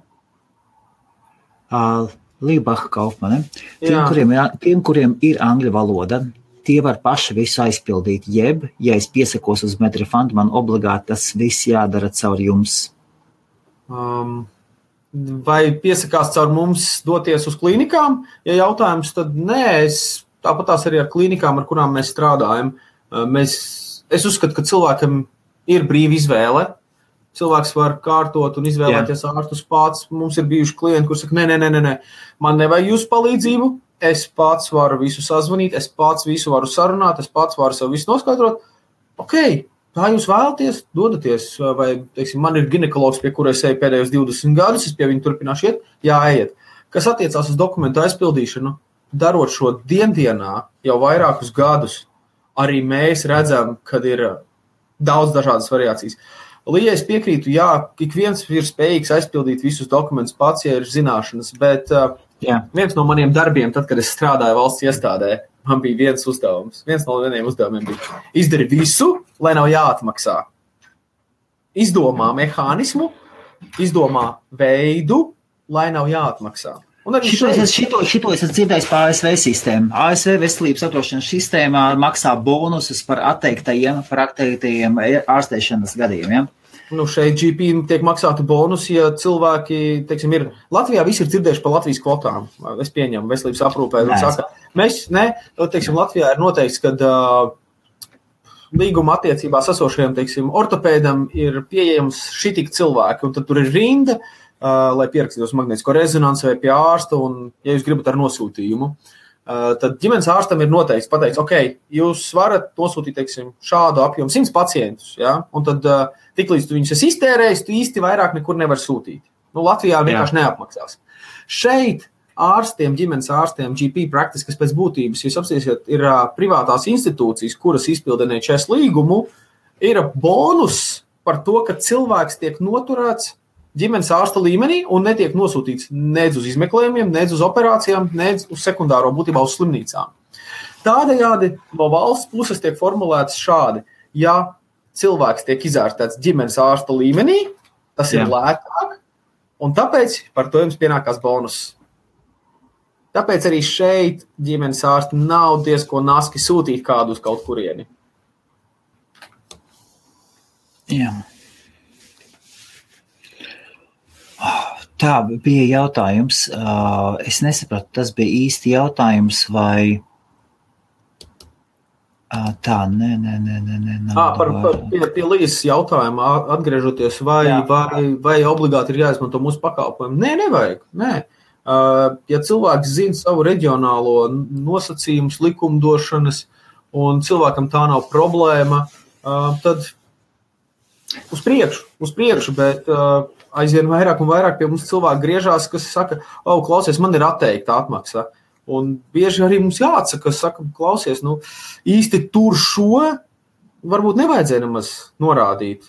Lībaha Kaufmane. Tiem, kuriem ir angļu valoda, tie var paši visu aizpildīt, jeb, ja es piesakos uz Medrefund, man obligāti tas viss jādara caur jums. Vai piesakās caur mums doties uz klīnikām? Ja jautājums, tad nē, tāpatās arī ar klīnikām, ar kurām mēs strādājam. Es uzskatu, ka cilvēkam ir brīva izvēle. Cilvēks var kārtot un izvēlēties ārstus pats. Mums ir bijuši klienti, kur saka, nē, man nevajag jūsu palīdzību. Es pats varu visu sazvanīt, es pats visu varu sarunāt, es pats varu sev visu noskaidrot. Ok, tā jūs vēlaties, dodaties. Vai, teiksim, man ir ginekologs, pie kura es eju pēdējos 20 gadus, es pie viņa turpināšu iet, ejiet. Kas attiecās uz dokumentu aizpildīšanu, darot šo dienā jau vairākus gadus, arī mēs redzam, kad ir daudz dažādas variācijas. Līja, es piekrītu, ik viens ir spējīgs aizpildīt visus dokumentus pats, ja ir zināšanas, bet viens no maniem darbiem, tad, kad es strādāju valsts iestādē, man bija viens uzdevums. Viens no vieniem uzdevumiem bija izdari visu, lai nav jāatmaksā. Izdomā mehānismu, izdomā veidu, lai nav jāatmaksā. Šito es dzirdēju par ASV sistēmu. ASV veselības apdrošināšanas sistēmā maksā bonusus par atteiktajiem ārstēšanas gadījumiem. Šeit GP tiek maksāti bonusi, ja cilvēki, teiksim, ir Latvijā, visi ir dzirdējuši par Latvijas kvotām. Es pieņemu veselības aprūpē. Teiksim, Latvijā ir noteikts, ka līguma attiecībās esošajam, teiksim, ortopēdam ir pieejams šitik cilvēki, un tad tur ir rinda, lai pierakstītos magnētisko rezonanci vai pie ārsta, un, ja jūs gribat ar nosūtījumu, tad ģimenes ārstam ir noteikts pateikt, ok, jūs varat nosūtīt, teiksim, šādu apjomu 100 pacientus, ja? Un tad tiklīdz tu viņus esi iztērējis, tu īsti vairāk nekur nevar sūtīt. Latvijā vienkārši neapmaksās. Šeit ārstiem, ģimenes ārstiem, GP practice, kas pēc būtības, jūs apstīsiet, ir privātās institūcijas, kuras izpilda NHS līgumu, ir bonus par to, ka cilvēks tiek noturēts ģimenes ārsta līmenī un netiek nosūtīts nedz uz izmeklējumiem, nedz uz operācijām, nedz uz sekundāro būtībā uz slimnīcām. Tādējādi no valsts puses tiek formulēts šādi, ja cilvēks tiek izārstēts ģimenes ārsta līmenī, tas ir lētāk, un tāpēc par to jums pienākās bonus. Tāpēc arī šeit ģimenes ārsti nav diezko naski sūtīt kādu uz kaut kurieni. Jā. Tā bija jautājums. Es nesapratu, tas bija īsti jautājums vai tā, Pie Līzes jautājuma atgriežoties, vai obligāti ir jāizmanto mūsu pakalpojumu? Nē, nevajag. Nē. Ja cilvēks zina savu reģionālo nosacījumus, likumdošanas, un cilvēkam tā nav problēma, tad uz priekšu, bet aizvien vairāk un vairāk pie mums cilvēki griežās, kas saka, klausies, man ir atteikta atmaksa. Un bieži arī mums jāatsaka, saka, klausies, īsti tur šo varbūt nevajadzēja nemaz norādīt.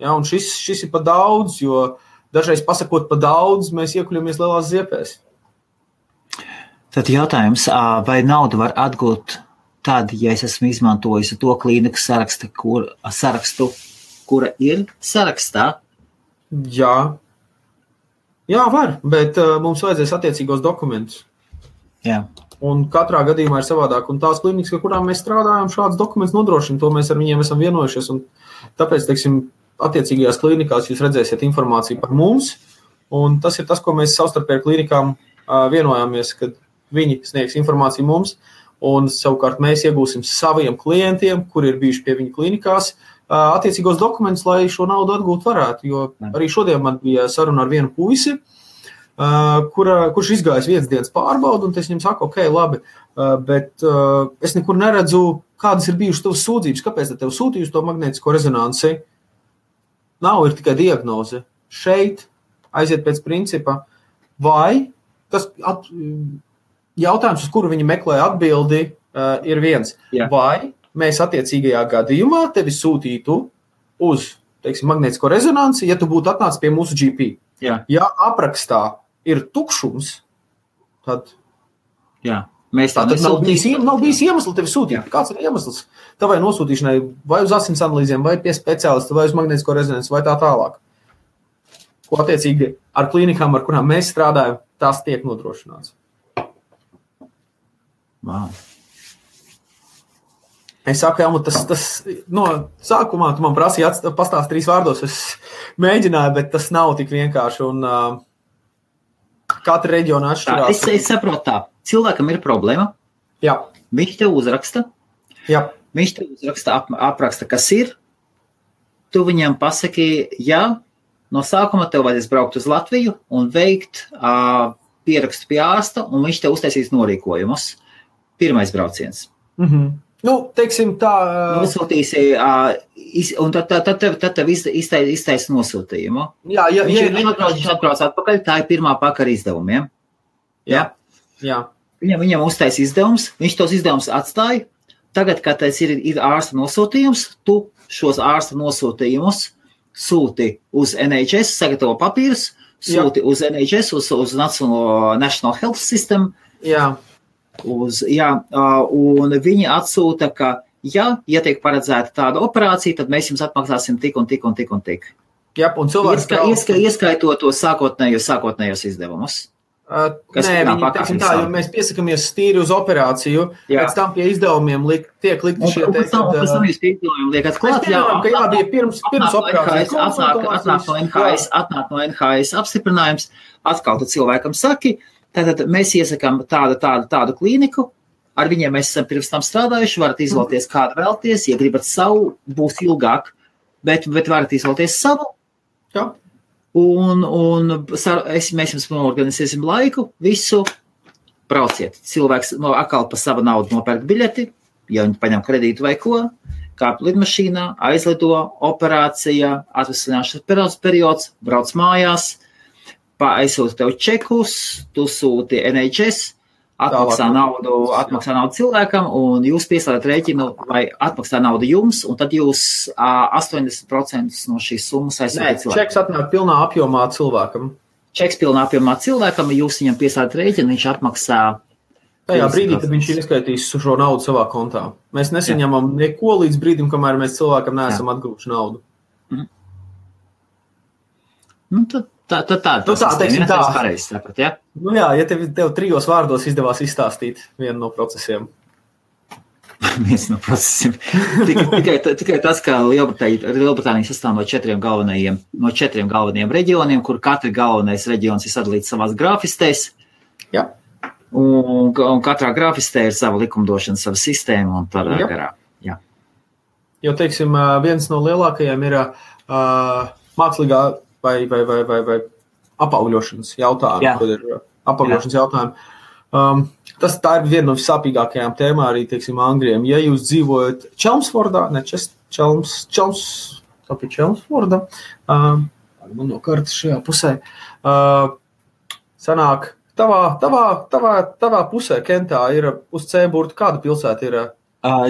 Ja, un šis ir pa daudz, jo dažreiz pasakot pa daudz, mēs iekuļamies lielās ziepēs. Tad jautājums, vai naudu var atgūt tad, ja es esmu izmantojis to klīniku sarakstu, kura ir sarakstā? Jā, var, bet mums vajadzēs attiecīgos dokumentus. Jā. Un katrā gadījumā ir savādāk. Un tās klīnikas, ar kurām mēs strādājam, šāds dokuments nodrošina, to mēs ar viņiem esam vienojušies. Un tāpēc, teiksim, attiecīgajās klīnikās jūs redzēsiet informāciju par mums. Un tas ir tas, ko mēs savstarpēji klīnikām vienojāmies, kad viņi sniegs informāciju mums. Un savukārt mēs iegūsim saviem klientiem, kuri ir bijuši pie viņa klīnikās, attiecīgos dokumentus, lai šo naudu atgūt varētu. Jo arī šodien man bija saruna ar vienu puisi, kurš izgājis vienas dienas pārbaudu, un es viņam saku, ok, labi, bet es nekur neredzu, kādas ir bijušas tavas sūdzības, kāpēc tev sūtījusi to magnētisko rezonanci. Nav, ir tikai diagnoze. Šeit aiziet pēc principa, vai tas jautājums, uz kuru viņi meklē atbildi, ir viens. Jā. Vai mēs attiecīgajā gadījumā tevi sūtītu uz, teiksim, magnētisko rezonanci, ja tu būtu atnācis pie mūsu GP. Jā. Ja aprakstā ir tukšums, tad mēs tā nav bijis iemesls tevi sūtīt. Jā. Kāds ir iemesls tavai nosūtīšanai vai uz asins analīzēm, vai pie speciālista, vai uz magnētisko rezonanci, vai tā tālāk? Ko attiecīgi ar klīnikām, ar kurām mēs strādājam, tās tiek nodrošināts. Wow. Es saku, tas no sākumā tu man prasīja pastāst 3 vārdos, es mēģināju, bet tas nav tik vienkārši, un katra reģiona atšķirās. Es saprotu tā, cilvēkam ir problēma, Jā. Viņš tev uzraksta, Jā. Viņš tev uzraksta, apraksta, kas ir, tu viņam pasaki, no sākuma tev vajadzēs braukt uz Latviju un veikt pierakstu pie ārsta, un viņš tev uztaisīs norīkojumus. Pirmais brauciens. Teiksim tā... Nosūtīsi, un tad tev iztaisa nosūtījumu. Jā. Viņš atbrauc atpakaļ, tā ir pirmā pakara izdevumiem. Jā. Viņam uztaisa izdevums, viņš tos izdevumus atstāja. Tagad, kad tas ir ārsta nosūtījums, tu šos ārsta nosūtījumus sūti uz NHS, sagatavo papīrus, sūti uz NHS, uz National Health System. Jā. Un viņi atsūta, ka, ja tiek paredzēta tāda operācija, tad mēs jums atmaksāsim tik un tik un tik un tik. Jā, un cilvēks ieskaitot to sākotnējos izdevumus. Nē, viņi, teiksim tā, jo mēs piesakamies stīri uz operāciju, pēc tam pie izdevumiem tiek likti šie te... Un pēc tam jūs pie izdevumiem liekat klāt, bija pirms operācijas. Atnāk no NHS apstiprinājums, atkal tad cilvēkam saki, tātad mēs iesakām tādu klīniku, ar viņiem mēs esam pirms tam strādājuši, varat izvēlēties kādu vēlties, ja gribat savu, būs ilgāk, bet varat izvēlēties savu. Jā. Mēs jums organizēsim laiku, visu, brauciet. Cilvēks atkal pa savu naudu nopērk biļeti, ja viņi paņem kredītu vai ko, kāp lidmašīnā, aizlido, operācija, atvesļināšanas periods, brauc mājās, aizsūta tev čekus, tu sūti NHS, atmaksā naudu cilvēkam, un jūs pieslēdat rēķinu vai atmaksā naudu jums, un tad jūs 80% no šīs summas aizsūtat cilvēkam. Čeks atnāk pilnā apjomā cilvēkam. Čeks pilnā apjomā cilvēkam, jūs viņam pieslēdat rēķinu, viņš atmaksā. Tajā brīdī, kad viņš ir izskaitījis šo naudu savā kontā. Mēs nesaņemam neko līdz brīdim, kamēr mēs cilvēkam neesam atgūši naudu. Nu, teiksim tā. Pareizi saprat, ja? Nu jā, ja tev 3 vārdos izdevās izstāstīt vienu no procesiem. Viens no procesiem. Tikai tas, ka Lielbritānija sastāv no 4 galvenajiem reģioniem, kur katri galvenais reģions ir sadalīts savās grāfistēs. Jā. Un katrā grāfistē ir sava likumdošana, sava sistēma un tādā garā. Jā. Jo, teiksim, viens no lielākajiem ir mākslīgā vai apaugļošanas jautājumi, kad ir apaugļošanas jautājumi. Tā ir viena no visāpīgākajām tēmām arī, teiksim, Angļiem. Ja jūs dzīvojat Chelmsfordā, Chelmsforda, man no kartas šajā pusē, sanāk, tavā pusē, Kentā, ir uz C-burtu, kāda pilsēta ir?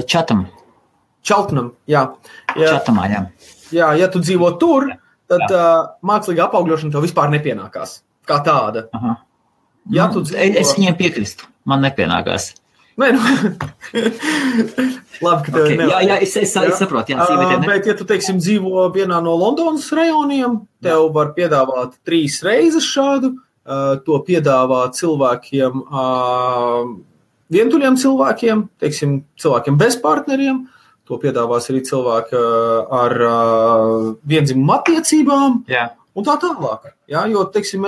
Cheltenham, jā. Cheltenhamā, jā. Jā, ja tu dzīvo tur, tad mākslīga apaugļošana tev vispār nepienākās, kā tāda. Aha. Ja es viņiem piekristu, man nepienākās. Nē, labi, ka tev nevajag. Jā, es saprotu. Bet, ja tu, teiksim, dzīvo vienā no Londonas rajoniem, tev var piedāvāt 3 reizes šādu, to piedāvā cilvēkiem, vientuļiem cilvēkiem, teiksim, cilvēkiem bez partneriem, to piedāvās arī cilvēki ar viendzimumu attiecībām un tā tālāk. Ja? Jo, teiksim,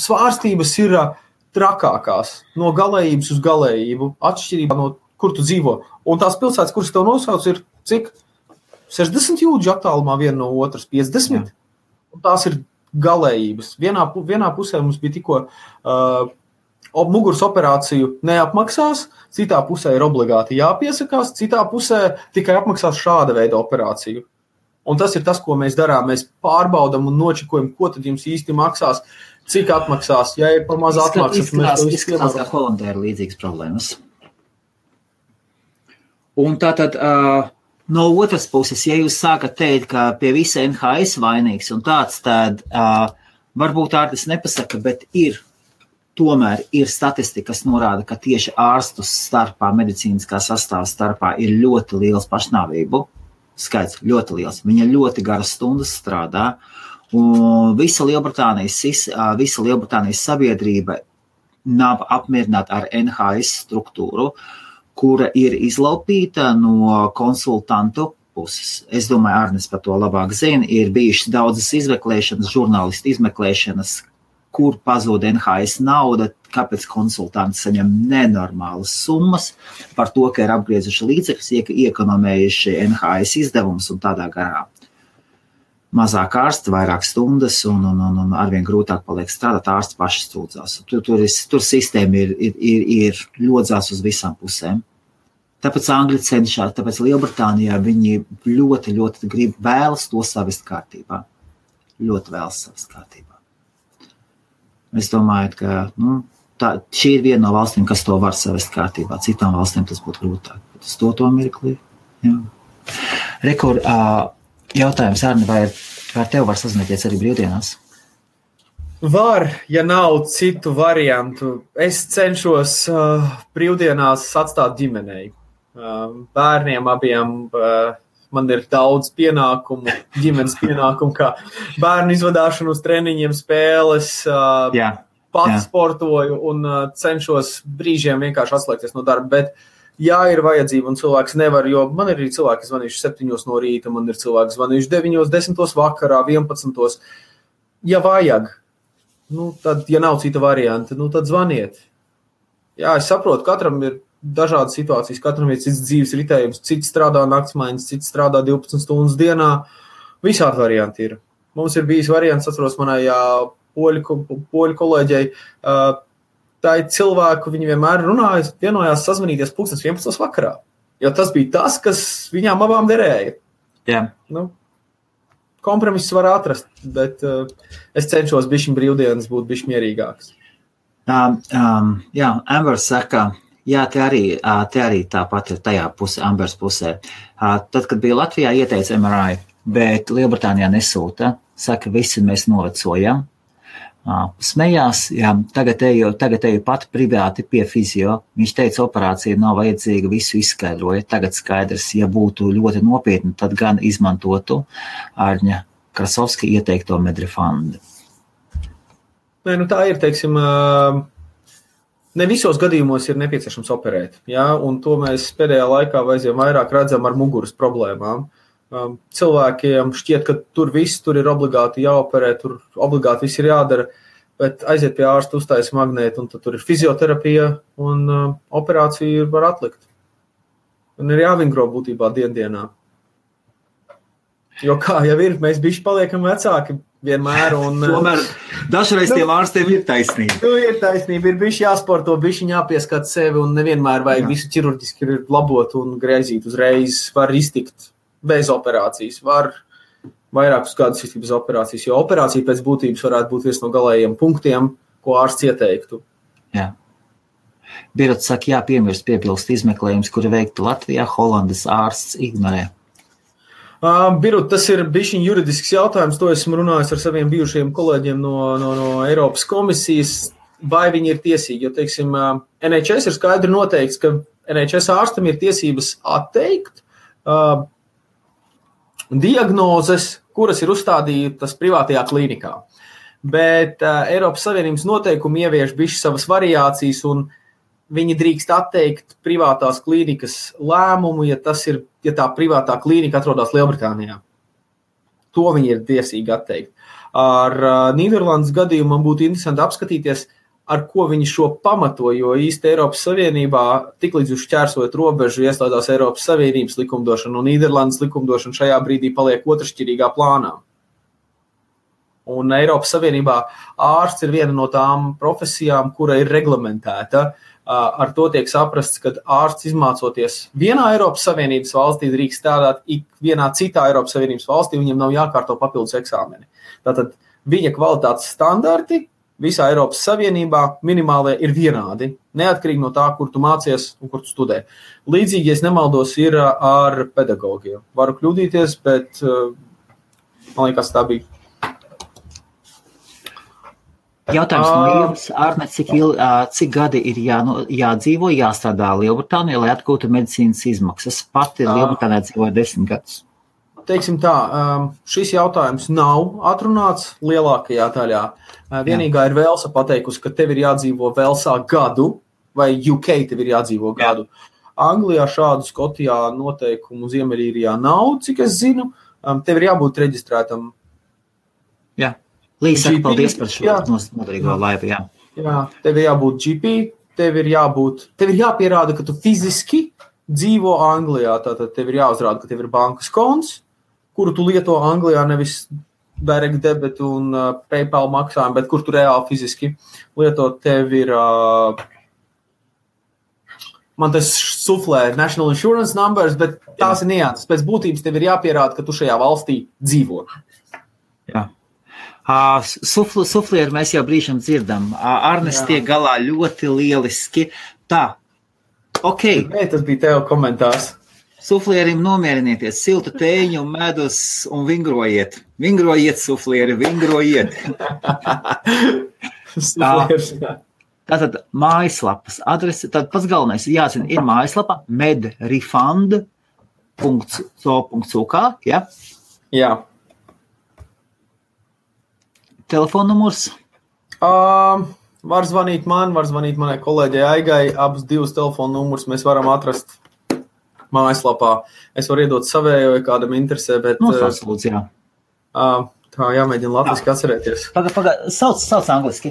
svārstības ir trakākās no galējības uz galējību, atšķirībā no kur tu dzīvo. Un tās pilsētas, kuras tev nosauc, ir cik? 60 jūdžu attālumā viena no otras, 50. Un tās ir galējības. Vienā pusē mums bija tikko muguras operāciju neapmaksās, citā pusē ir obligāti jāpiesakās, citā pusē tikai apmaksās šāda veida operāciju. Un tas ir tas, ko mēs darām. Mēs pārbaudam un nočekojam, ko tad jums īsti maksās, cik atmaksās. Ja ir par maz atmaksas, izskatās, ka Holandē ir līdzīgas problēmas. Un tātad no otras puses, ja jūs sākat teikt, ka pie visa NHS vainīgs un tāds, tad varbūt ārtis nepasaka, bet tomēr ir statistika, kas norāda, ka tieši ārstu starpā, medicīniskā sastāvā starpā ir ļoti liels pašnāvību skaits, ļoti liels. Viņa ļoti garas stundas strādā, un visa Lielbritānijas sabiedrība nav apmierināta ar NHS struktūru, kura ir izlaupīta no konsultantu puses. Es domāju, Arnis par to labāk zina, ir bijušas daudzas izmeklēšanas, žurnālistu izmeklēšanas, kur pazūd NHS nauda, kāpēc konsultanti saņem nenormālas summas par to, ka ir apgriezuši līdzekļus, iekonomējuši NHS izdevumus un tādā garā. Mazāk ārsti, vairāk stundas un arvien grūtāk paliek strādāt, ārsti paši stūdzās. Tur sistēma ir ļodzās uz visām pusēm. Tāpēc Angļi cenšas, tāpēc Lielbritānijā viņi ļoti, ļoti vēlas to savest kārtībā. Ļoti vēlas savest kārtībā. Es domāju, ka šī ir viena no valstīm, kas to var savest kārtībā. Citām valstīm tas būtu grūtāk. Tas to mirklī. Rekur, jautājums, Arni, vai tev var sazināties arī brīvdienās? Var, ja nav citu variantu. Es cenšos brīvdienās atstāt ģimenei. Bērniem abiem man ir daudz pienākumu, ģimenes pienākumu, kā bērnu izvadāšanu uz treniņiem, spēles, pats sportoju un cenšos brīžiem vienkārši atslēgties no darba, bet jā, ir vajadzība un cilvēks nevar, jo man ir arī cilvēki zvanījuši 7 no rīta, man ir cilvēki zvanījuši 9, 10 vakarā, 11. Ja vajag, tad, ja nav cita varianta, tad zvaniet. Jā, es saprotu, katram ir dažādas situācijas, katram ir cits dzīves ritējums, cits strādā naktsmaiņas, cits strādā 12 stundas dienā, visādi varianti ir. Mums ir bijis variants, atceros manai poļu kolēģei, tā ir cilvēku, viņi vienmēr runāja, vienojās sazvanīties 11 vakarā, jo tas bija tas, kas viņām abām derēja. Jā. Kompromiss var atrast, bet es cenšos bišķiņ brīvdienas būt bišķi mierīgāks. Jā, Ambers saka, jā, te arī tāpat ir tajā pusē, Ambers pusē. Tad, kad bija Latvijā, ieteica MRI, bet Lielbritānijā nesūta. Saka, visi mēs novecojam. Smējās, jā, tagad eju pat privāti pie fizio. Viņš teica, operācija nav vajadzīga, visu izskaidroja. Tagad skaidrs, ja būtu ļoti nopietni, tad gan izmantotu Ārņa Krasovska ieteikto Medrifandu. Nē, tā ir, teiksim, ne visos gadījumos ir nepieciešams operēt, jā, un to mēs pēdējā laikā aizvien vairāk redzam ar muguras problēmām. Cilvēkiem šķiet, ka tur ir obligāti jāoperē, tur obligāti viss ir jādara, bet aiziet pie ārsta, uztaisa magnētu, un tad tur ir fizioterapija, un operāciju var atlikt. Un ir jāvingro būtībā dienā. Jo kā jau ir, mēs bišķi paliekam vecāki vienmēr. Tomēr dažreiz tiem ārstiem ir taisnība. Ir taisnība, ir bišķi jāsporto, bišķi jāpieskat sevi, un nevienmēr vajag visu ķirurģiski labot un greizīt uzreiz. Var iztikt bez operācijas, var vairākus gadus iztikt bez operācijas, jo operācija pēc būtības varētu būt viens no galējiem punktiem, ko ārsts ieteiktu. Jā. Birot saka, jāpiemirst piebilst izmeklējums, kuri veikti Latvijā, Holandas ārsts ignorē. Birut, tas ir bišķiņ juridisks jautājums, to esmu runājis ar saviem bijušajiem kolēģiem no Eiropas komisijas, vai viņi ir tiesīgi, jo, teiksim, NHS ir skaidri noteikts, ka NHS ārstam ir tiesības atteikt diagnozes, kuras ir uzstādītas privātajā klīnikā. Bet Eiropas Savienības noteikumi ievieš bišķi savas variācijas un viņi drīkst atteikt privātās klīnikas lēmumu, ja tā privātā klīnika atrodas Lielbritānijā. To viņi ir tiesīgi atteikt. Ar Nīderlandes gadījumu man būtu interesanti apskatīties, ar ko viņi šo pamato, jo īsti Eiropas Savienībā tiklīdz jūs šķērsojat robežu ieslēdzās Eiropas Savienības likumdošana, un Nīderlandes likumdošana šajā brīdī paliek otršķirīgā plānā. Un Eiropas Savienībā ārsts ir viena no tām profesijām, kura ir reglamentēta. Ar to tiek saprasts, ka ārsts izmācoties vienā Eiropas Savienības valstī drīkst strādāt vienā citā Eiropas Savienības valstī, viņam nav jākārto papildus eksāmeni. Tātad viņa kvalitātes standarti visā Eiropas Savienībā minimālie ir vienādi, neatkarīgi no tā, kur tu mācies un kur tu studē. Līdzīgi, ja es nemaldos, ir ar pedagogiem. Varu kļūdīties, bet man liekas, tā bija. Jautājums no jums, Arne, cik gadi ir jādzīvo, jāstrādā Lielbritānijā, lai atgūtu medicīnas izmaksas? Pati Lielbritānijā dzīvoja 10 gadus. Teiksim tā, šis jautājums nav atrunāts lielākajā daļā. Vienīgā ir Velsa pateikusi, ka tev ir jādzīvo Velsā gadu, vai UK tev ir jādzīvo gadu. Anglijā šādu, Skotijā noteikumu Ziemeļīrijā nav, cik es zinu. Tev ir jābūt reģistrētam. Jā. Līdz saka, paldies par šo noderīgo laivu, jā. Jā, tev ir jābūt GP, tev ir jāpierāda, ka tu fiziski dzīvo Anglijā, tātad tev ir jāuzrāda, ka tev ir bankas konts, kuru tu lieto Anglijā, nevis direct debit un PayPal maksājumu, bet kur tu reāli fiziski lieto, tev ir, man tas suflē National Insurance numbers, bet tās ir nianses. Pēc būtības tev ir jāpierāda, ka tu šajā valstī dzīvo. Jā. Suflieri mēs jau brīžam dzirdam. Arnes tiek galā ļoti lieliski. Tā, ok. Nē, tas bija tev komentārs. Suflierim nomierinieties, siltu tēņu, medus un vingrojiet. Vingrojiet, suflieri, vingrojiet. Tātad mājaslapas adrese, tad pats galvenais jāzina, ir mājaslapa medrefund.com. www.so.uk, ja? Jā. Telefonnumurs? Var zvanīt man, var zvanīt manai kolēģei Aigai. Abus divus telefonu numurus mēs varam atrast mājaslapā. Es varu iedot savējo, ja kādam interesē, bet... Nosauc, jā. Tā jāmēģina latviski atcerēties. Sauc angliski.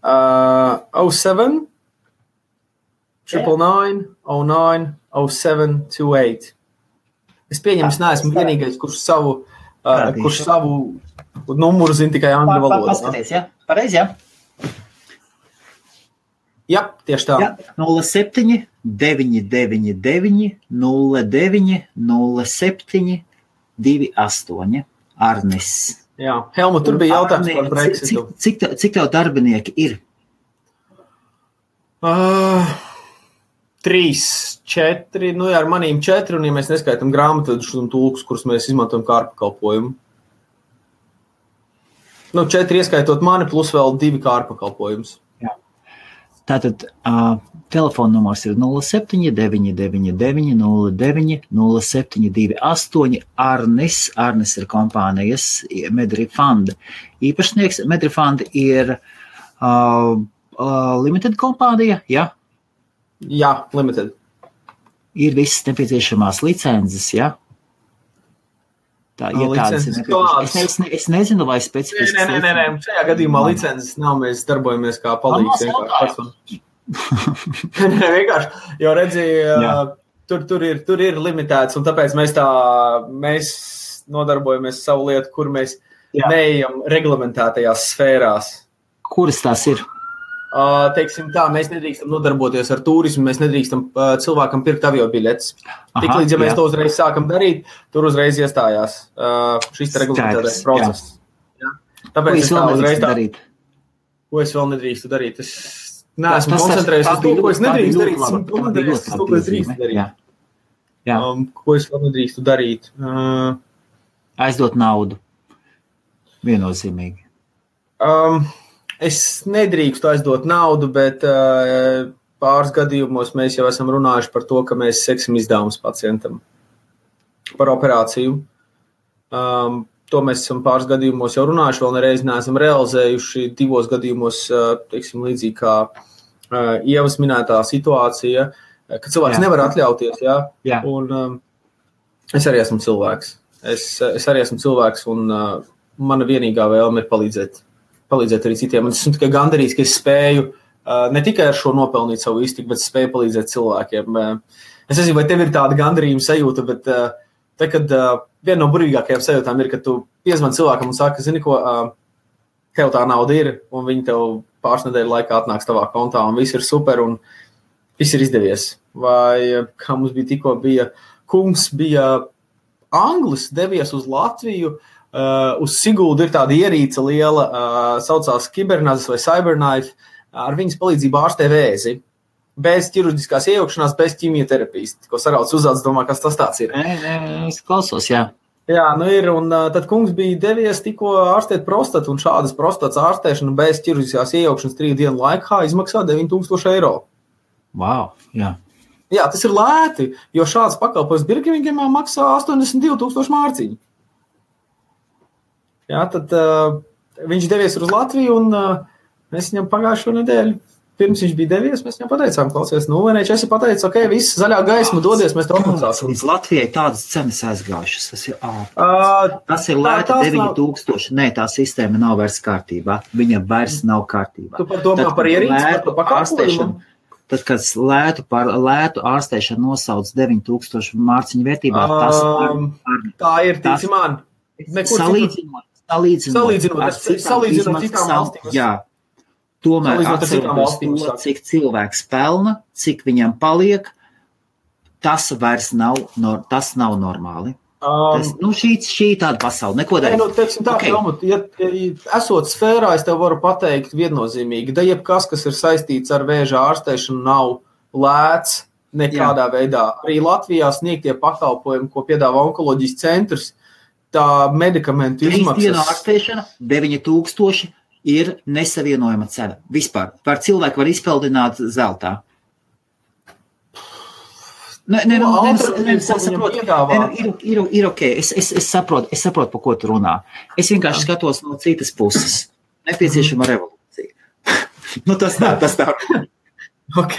07 999 09 0728. Es pieņemu, es neesmu vienīgais, kurš savu numuru zina tikai angļu valodā. Paskaties, jā? Pareizi, jā? Jā, tieši tā. 07 999 09 07 28. Arnis. Jā, Helmut, tur bija jautājums par Brexitu. Cik tev darbinieki ir? 3, 4, nu jā, ar manīm 4, un ja mēs neskaitam grāmatvedus un tulkus, kurus mēs izmantojam kā ārpakalpojumu. 4 ieskaitot mani, plus vēl 2 kā ārpakalpojumus. Tātad telefona numurs ir 07 999 09 0728. Arnis ir kompānijas Medrifund īpašnieks. Medrifund ir limited kompānija, ja? Jā, limited. Ir visas nepieciešamās licences, ja? Tā, ja tādas ir nepieciešamas. Es nezinu, vai specifiski... Nē. Šajā gadījumā licences nav, mēs darbojamies kā palīgs vienkārši. Vienkārši, jo redzēju, tur ir limitēts, un tāpēc mēs nodarbojamies savu lietu, kur mēs neejam reglamentētajās sfērās. Kuras tās ir? Teiksim tā, mēs nedrīkstam nodarboties ar turismu, mēs nedrīkstam cilvēkam pirkt aviobiļetes. Tiklīdz, ja mēs to uzreiz sākam darīt, tur uzreiz iestājās šis reglamentētais process. Tāpēc es tā uzreiz darīt? Ko es vēl nedrīkstu darīt? Es neesmu koncentrējies uz to, ko es nedrīkstu darīt. Ko es drīkstu darīt? Ko es vēl nedrīkstu darīt? Aizdot naudu. Viennozīmīgi. Es nedrīkstu aizdot naudu, bet pāris gadījumos mēs jau esam runājuši par to, ka mēs seksim izdevumus pacientam par operāciju. To mēs esam pāris gadījumos jau runājuši, vēl nereiz neesam realizējuši 2 gadījumos, teiksim, līdzīgi kā Ievas minētā situācija, ka cilvēks nevar atļauties, jā. Un es arī esmu cilvēks. Es arī esmu cilvēks, un mana vienīgā vēlme ir palīdzēt arī citiem. Un es esmu tikai gandarīts, ka es spēju ne tikai ar šo nopelnīt savu iztiku, bet spēju palīdzēt cilvēkiem. Es nezinu, vai tev ir tāda gandarījuma sajūta, bet te, kad viena no burvīgākajām sajūtām ir, ka tu piezvani cilvēkam un saki, zini ko, tev tā nauda ir, un viņi tev pāris nedēļu laikā atnāks tavā kontā, un viss ir super, un viss ir izdevies. Vai, kā mums tikko bija, kungs bija Anglis, devies uz Latviju, uz Siguldu ir tāda ierīce liela, saucās Kibernazis vai Cyberknife, ar viņas palīdzību ārstē vēzi, bez ķirurģiskās iejaukšanās, bez ķimioterapijas. Ko sarauc uzāds, domā, kas tas tāds ir. Es klausos, jā. Jā, ir, un tad kungs bija devies tikko ārstēt prostatu, un šādas prostatas ārstēšana bez ķirurģiskās iejaukšanas 3 dienu laikā izmaksā 9,000 eiro. Wow, jā. Jā, tas ir lēti, jo šāds pakalpojums Birmingemā maksā 82,000 mārciņu. Jā, tad viņš devies uz Latviju, un mēs viņam pagājušo nedēļu, pirms viņš bija devies, mēs viņam pateicām, klausies, vienreiz esi pateicis, ok, viss zaļā gaisma dodies, mēs to apmaksāsim. Līdz Latvijai tādas cenas aizgājušas, tas ir lēti 9,000, nē, tā sistēma nav vairs kārtībā, viņa vairs nav kārtībā. Tu par domā par ierīci, par pakalpojumu? Tad, kad lētu ārstēšanu nosauc 9,000 mārciņu vērtībā, tā ir, tīci man. Salīdzinot ar citām valstīm. Jā, tomēr atceroties to, cik cilvēks pelna, cik viņam paliek, tas vairs nav normāli. Šī tāda pasaule, neko darīt. Teiksim tā, Helmut, ja esot sfērā, es tev varu pateikt viennozīmīgi, da jebkas, kas ir saistīts ar vēža ārstēšanu, nav lēts nekādā veidā. Arī Latvijā sniegtie pakalpojumi, ko piedāvā onkoloģijas centrs, tā medikamentu izmaksas. 3 dienu ārstēšana, 9,000 ir nesavienojama cena. Vispār. Par cilvēku var izpeldināt zeltā. Ir ok, es saprotu, pa ko tu runā. Es vienkārši skatos no citas puses. Nepieciešama revolūcija. Tas tā. Ok,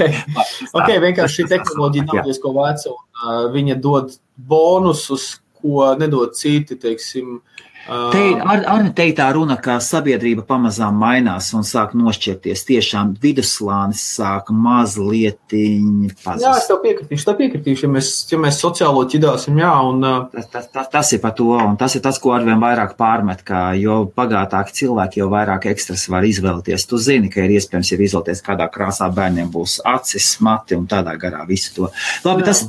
vienkārši šī tehnoloģija nav diezko veca, un viņa dod bonusus, ko nedod citi, teiksim. Arni teikt tā runa, ka sabiedrība pamazām mainās un sāk nošķirties. Tiešām viduslānis sāk mazlietiņi pazust. Jā, es tev piekritīšu, ja mēs sociālo ķidāsim, jā. Un, tas ir par to, un tas ir tas, ko arvien vairāk pārmet, ka jo bagātāki cilvēki, jo vairāk ekstras var izvēlēties. Tu zini, ka ir iespējams jau izvēlēties, kādā krāsā bērniem būs acis, mati un tādā garā visu to. Labi, tas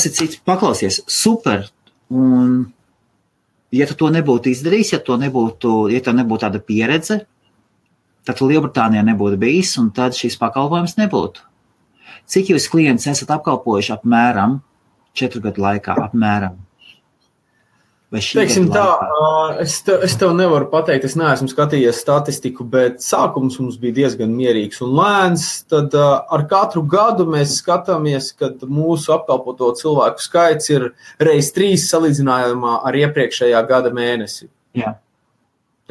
ir cits. Paklausies, super. Un, ja tu to nebūtu izdarījis, ja tev nebūtu tāda pieredze, tad Lielbritānijā nebūtu bijis, un tad šis pakalpojums nebūtu. Cik jūs klientus esat apkalpojuši apmēram 4 gadu laikā? Apmēram? Teiksim tā, es tev nevaru pateikt, es neesmu skatījies statistiku, bet sākums mums bija diezgan mierīgs un lēns. Tad ar katru gadu mēs skatāmies, kad mūsu apkalpoto cilvēku skaits ir reiz 3 salīdzinājumā ar iepriekšējā gada mēnesi. Jā.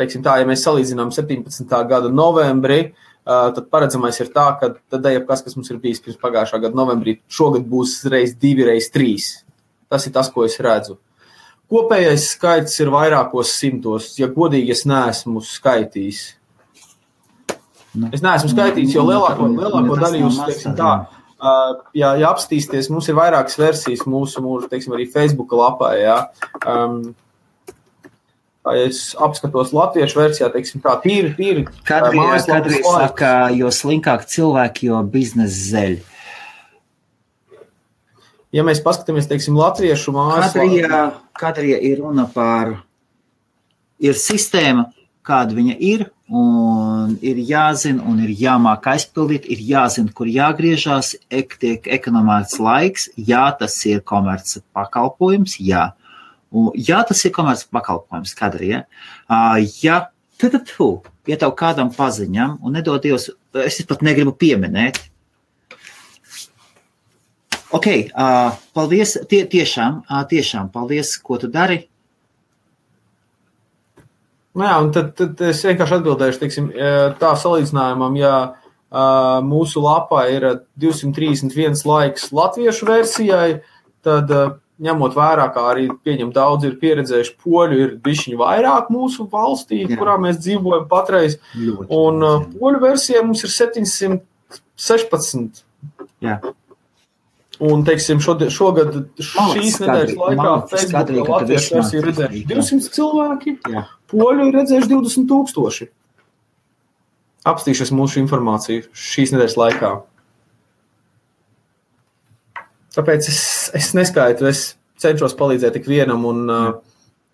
Teiksim tā, ja mēs salīdzinām 17. gada novembrī, tad paredzamais ir tā, ka tad jebkas, kas mums ir bijis pirms pagājušā gada novembrī, šogad būs reiz 2, reiz 3. Tas ir tas, ko es redzu. Kopējais skaits ir vairākos simtos, ja godīgi es neesmu skaitījis. Es neesmu skaitījis, jo lielāko daļu jūs, teiksim tā, ja apstīsties, mums ir vairākas versijas mūsu teiksim, arī Facebooka lapā, jā. Ja es apskatos latviešu versijā, teiksim tā, tīri. Kadrija saka, jo slinkāk cilvēki, jo biznes zeļ. Ja mēs paskatāmies, teiksim, latviešu mājaslapā. Kadrija ir runa par, ir sistēma, kāda viņa ir, un ir jāzina, un ir jāmāk aizpildīt, ir jāzina, kur jāgriežās, tiek ekonomēts laiks, jā, tas ir komerces pakalpojums, jā. Jā, tas ir komerces pakalpojums, Kadrija. Ja tev kādam paziņam, un nedod Dievs, es pat negribu pieminēt, ok, paldies, tiešām paldies, ko tu dari. Jā, un tad es vienkārši atbildēšu, teiksim, tā salīdzinājumam, ja mūsu lapā ir 231 laiks latviešu versijai, tad ņemot vērā, kā arī pieņem daudz ir pieredzējuši poļu, ir bišķiņi vairāk mūsu valstī, kurā mēs dzīvojam patreiz, un poļu versijai mums ir 716. Jā. Un, teiksim, šogad šīs nedēļas laikā Facebookā latviešu versiju redzējuši 200 cilvēki, poļu ir redzējuši 20,000. Apstīšies mūsu informāciju šīs nedēļas laikā. Tāpēc es neskaitu, es cenšos palīdzēt tik vienam, un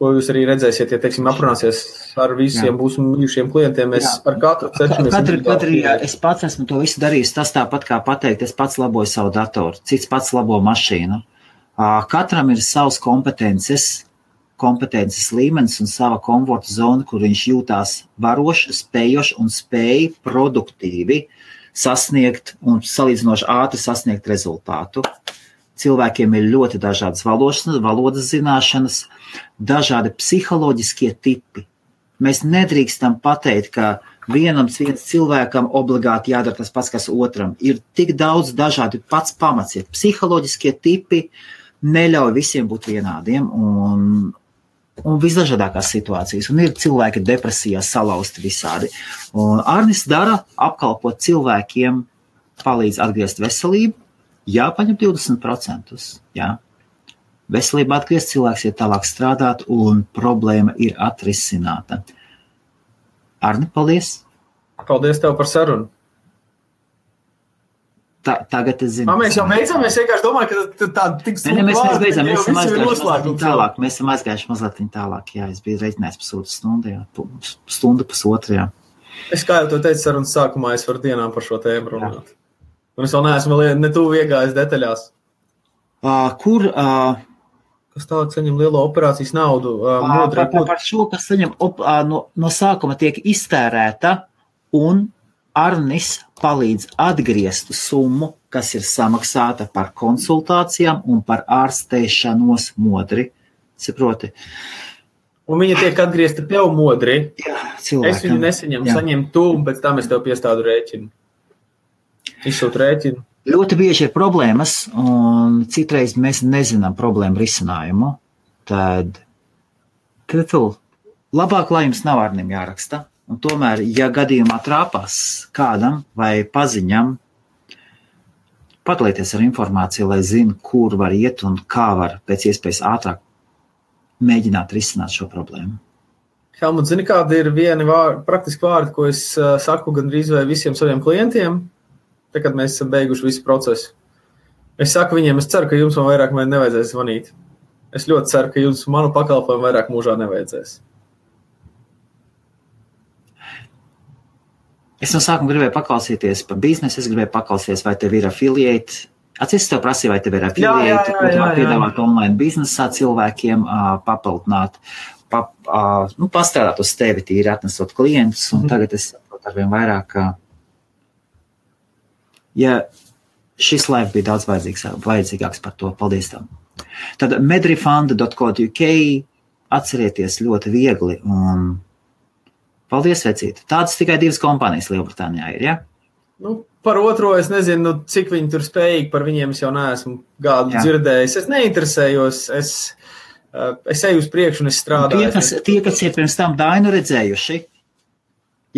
ko jūs arī redzēsiet, ja, teiksim, aprunāsies ar visiem mūsu mīļušiem klientiem, mēs ar katru cenšamies. Katrija, es pats esmu to visu darījis, tas tāpat kā pateikt, es pats laboju savu datoru, cits pats labo mašīnu. Katram ir savs kompetences līmenis un sava komforta zona, kur viņš jūtās varoši, spējoši un spēj produktīvi sasniegt un salīdzinoši ātri sasniegt rezultātu. Cilvēkiem ir ļoti dažādas valodas zināšanas, dažādi psiholoģiskie tipi. Mēs nedrīkstam pateikt, ka vienam cilvēkam obligāti jādara tas pats, kas otram. Ir tik daudz dažādi pats pamats. Ir psiholoģiskie tipi, neļauj visiem būt vienādiem un visdažādākās situācijas. Un ir cilvēki depresijā salausti visādi. Un Arnis dara apkalpot cilvēkiem, palīdz atgriezt veselību. Jā, paņem 20%. Jā. Veselība atgriezt, cilvēks ir tālāk strādāt un problēma ir atrisināta. Arni, paldies! Paldies tev par sarunu! Tagad es zinu. Mēs jau beidzam, es vienkārši domāju, ka tā tik sūta vārdi, mēs esam aizgājuši mazliet tālāk. Jā, es biju reiķinājis pusotru stundu, jā. Stundu pusotru, jā. Es kā jau to teicu sarunas sākumā, es varu dienām par šo tēmu runāt. Un es vēl neesmu ne tuvu iegājis detaļās. Kas tālāk saņem lielo operācijas naudu? Par šo, kas saņem no sākuma tiek iztērēta un Arnis palīdz atgriezt summu kas ir samaksāta par konsultācijām un par ārstēšanos modri. Saproti? Un viņa tiek atgriezta tev modri. Jā, cilvēkam. Es viņu nesaņemu, saņemu tu, un pēc tam es tev piestādu rēķinu. Izsūtu rēķinu. Ļoti bieži ir problēmas, un citreiz mēs nezinām problēmu risinājumu. Tad labāk, lai jums nav ārnim jāraksta. Un tomēr, ja gadījumā trāpās kādam vai paziņam, padalieties ar informāciju, lai zinu, kur var iet un kā var pēc iespējas ātrāk mēģināt risināt šo problēmu. Helmut, zini, kādi ir vieni praktiski vārdi, ko es saku gandrīz vai visiem saviem klientiem, tad, kad mēs esam beiguši visu procesu. Es saku viņiem, es ceru, ka jums man vairāk nevajadzēs zvanīt. Es ļoti ceru, ka jums manu pakalpojumu vairāk mūžā nevajadzēs. Es no sākuma gribēju paklausīties par biznesu, es gribēju paklausīties, vai tev ir affiliate. Atceries, tev prasīja, vai tev ir affiliate, ko tu var piedāvāt online biznesā cilvēkiem, papildināt, pastrādāt uz tevi tīri atnesot klientus, un tagad es saprotu arvien vairāk, ja šis live bija daudz vajadzīgāks par to. Paldies tam. Tad medrefund.co.uk atcerieties ļoti viegli un paldies, vecīt. Tādas tikai 2 kompānijas Lielbritānijā ir, ja? Par otro es nezinu, cik viņi tur spējīgi, par viņiem es jau neesmu gādu dzirdējis. Es neinteresējos, es eju uz priekšu un es strādāju. Tie, kas ir pirms tam Dainu redzējuši,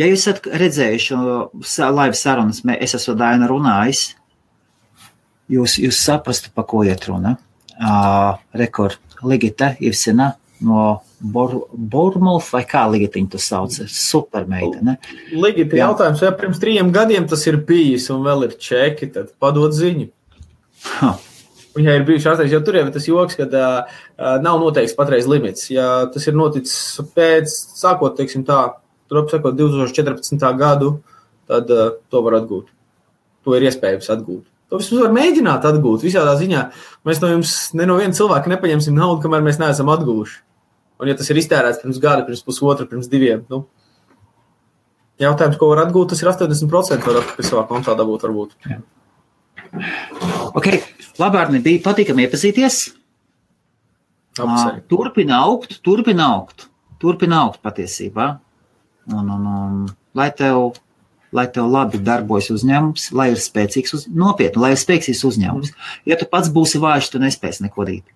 ja jūs esat redzējuši live sarunas, es esmu Dainu runājis, jūs saprastu, pa ko iet runa. Rekord Ligita Ivsina no Bournemouth, vai kā Ligitiņu tu sauc? Super meitene. Ligita jautājums, ja pirms 3 gadiem tas ir bijis un vēl ir čeki, tad padod ziņu. Viņai ir bijuši ārstēs, jo tur jau tas joks, kad nav noteikts patreiz limits. Ja tas ir noticis pēc, sākot, teiksim tā, tur apsakot 2014. gadu, tad to var atgūt. To ir iespējams atgūt. To vismaz var mēģināt atgūt. Visādā ziņā mēs no jums, ne no viena cilvēka nepaņemsim naudu, kamēr mēs neesam atgūši. Un ja tas ir iztērēts pirms gada, pirms pusotra, pirms 2, jautājums, ko var atgūt, tas ir 80% var pie savā kontā dabūt varbūt. Ok, labāk bija patīkami iepazīties. Turpina augt patiesībā. Un lai tev labi darbojas uzņēmums, lai ir spēcīgs nopietni, lai ir spēcīgs uzņēmums. Ja tu pats būsi vājš, tu nespēsi neko darīt.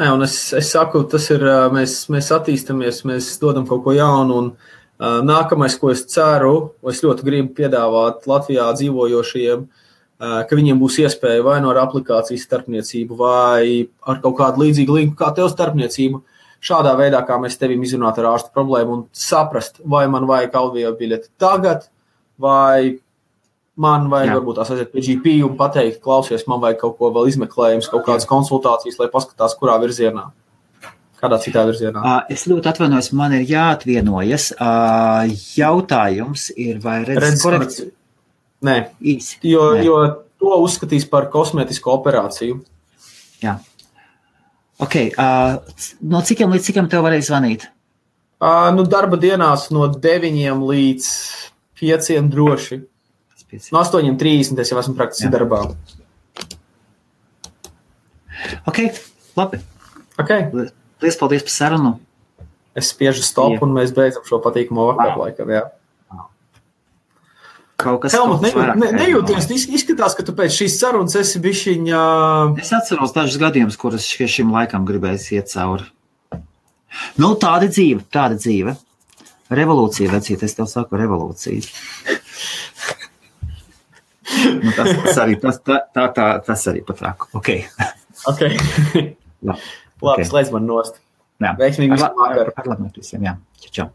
Un es saku, tas ir, mēs attīstamies, mēs dodam kaut ko jaunu, un nākamais, ko es ceru, es ļoti gribu piedāvāt Latvijā dzīvojošajiem, ka viņiem būs iespēja vai no ar aplikācijas starpniecību, vai ar kaut kādu līdzīgu linku kā tev starpniecību, šādā veidā, kā mēs tevim izrunāt ar ārstu problēmu un saprast, vai man vajag audio biļeti tagad, vai man vajag varbūt tās aiziet pie GP un pateikt, klausies, man vajag kaut ko vēl izmeklējums, kaut kādas konsultācijas, lai paskatās, kurā virzienā, kādā citā virzienā. Es ļoti atvainojos, man ir jāatvienojas. Jautājums ir, vai redzes korekciju? Nē, jo to uzskatīs par kosmētisku operāciju. Jā. Ok, no cikiem līdz cikiem tev varēja zvanīt? Darba dienās no 9 līdz 5 droši. No 8:30 es jau esmu praktiski darbā. Ok, labi. Okay. Liels paldies par sarunu. Es spiežu stop un mēs beidzam šo patīkamo vakaru laikam, jā. Helmut, nejūties, izskatās, ka tu pēc šīs sarunas esi bišķiņā... Es atceros dažus gadījumus, kurus šim laikam gribēs iet cauri. Tāda dzīve. Revolūcija, vecīt, es tev saku revolūcija. Tas arī patrāku. Ok. Labi, slēdz man nost. Veiksmīgi visu vakaru. Ar labāk visiem, jā. Čau.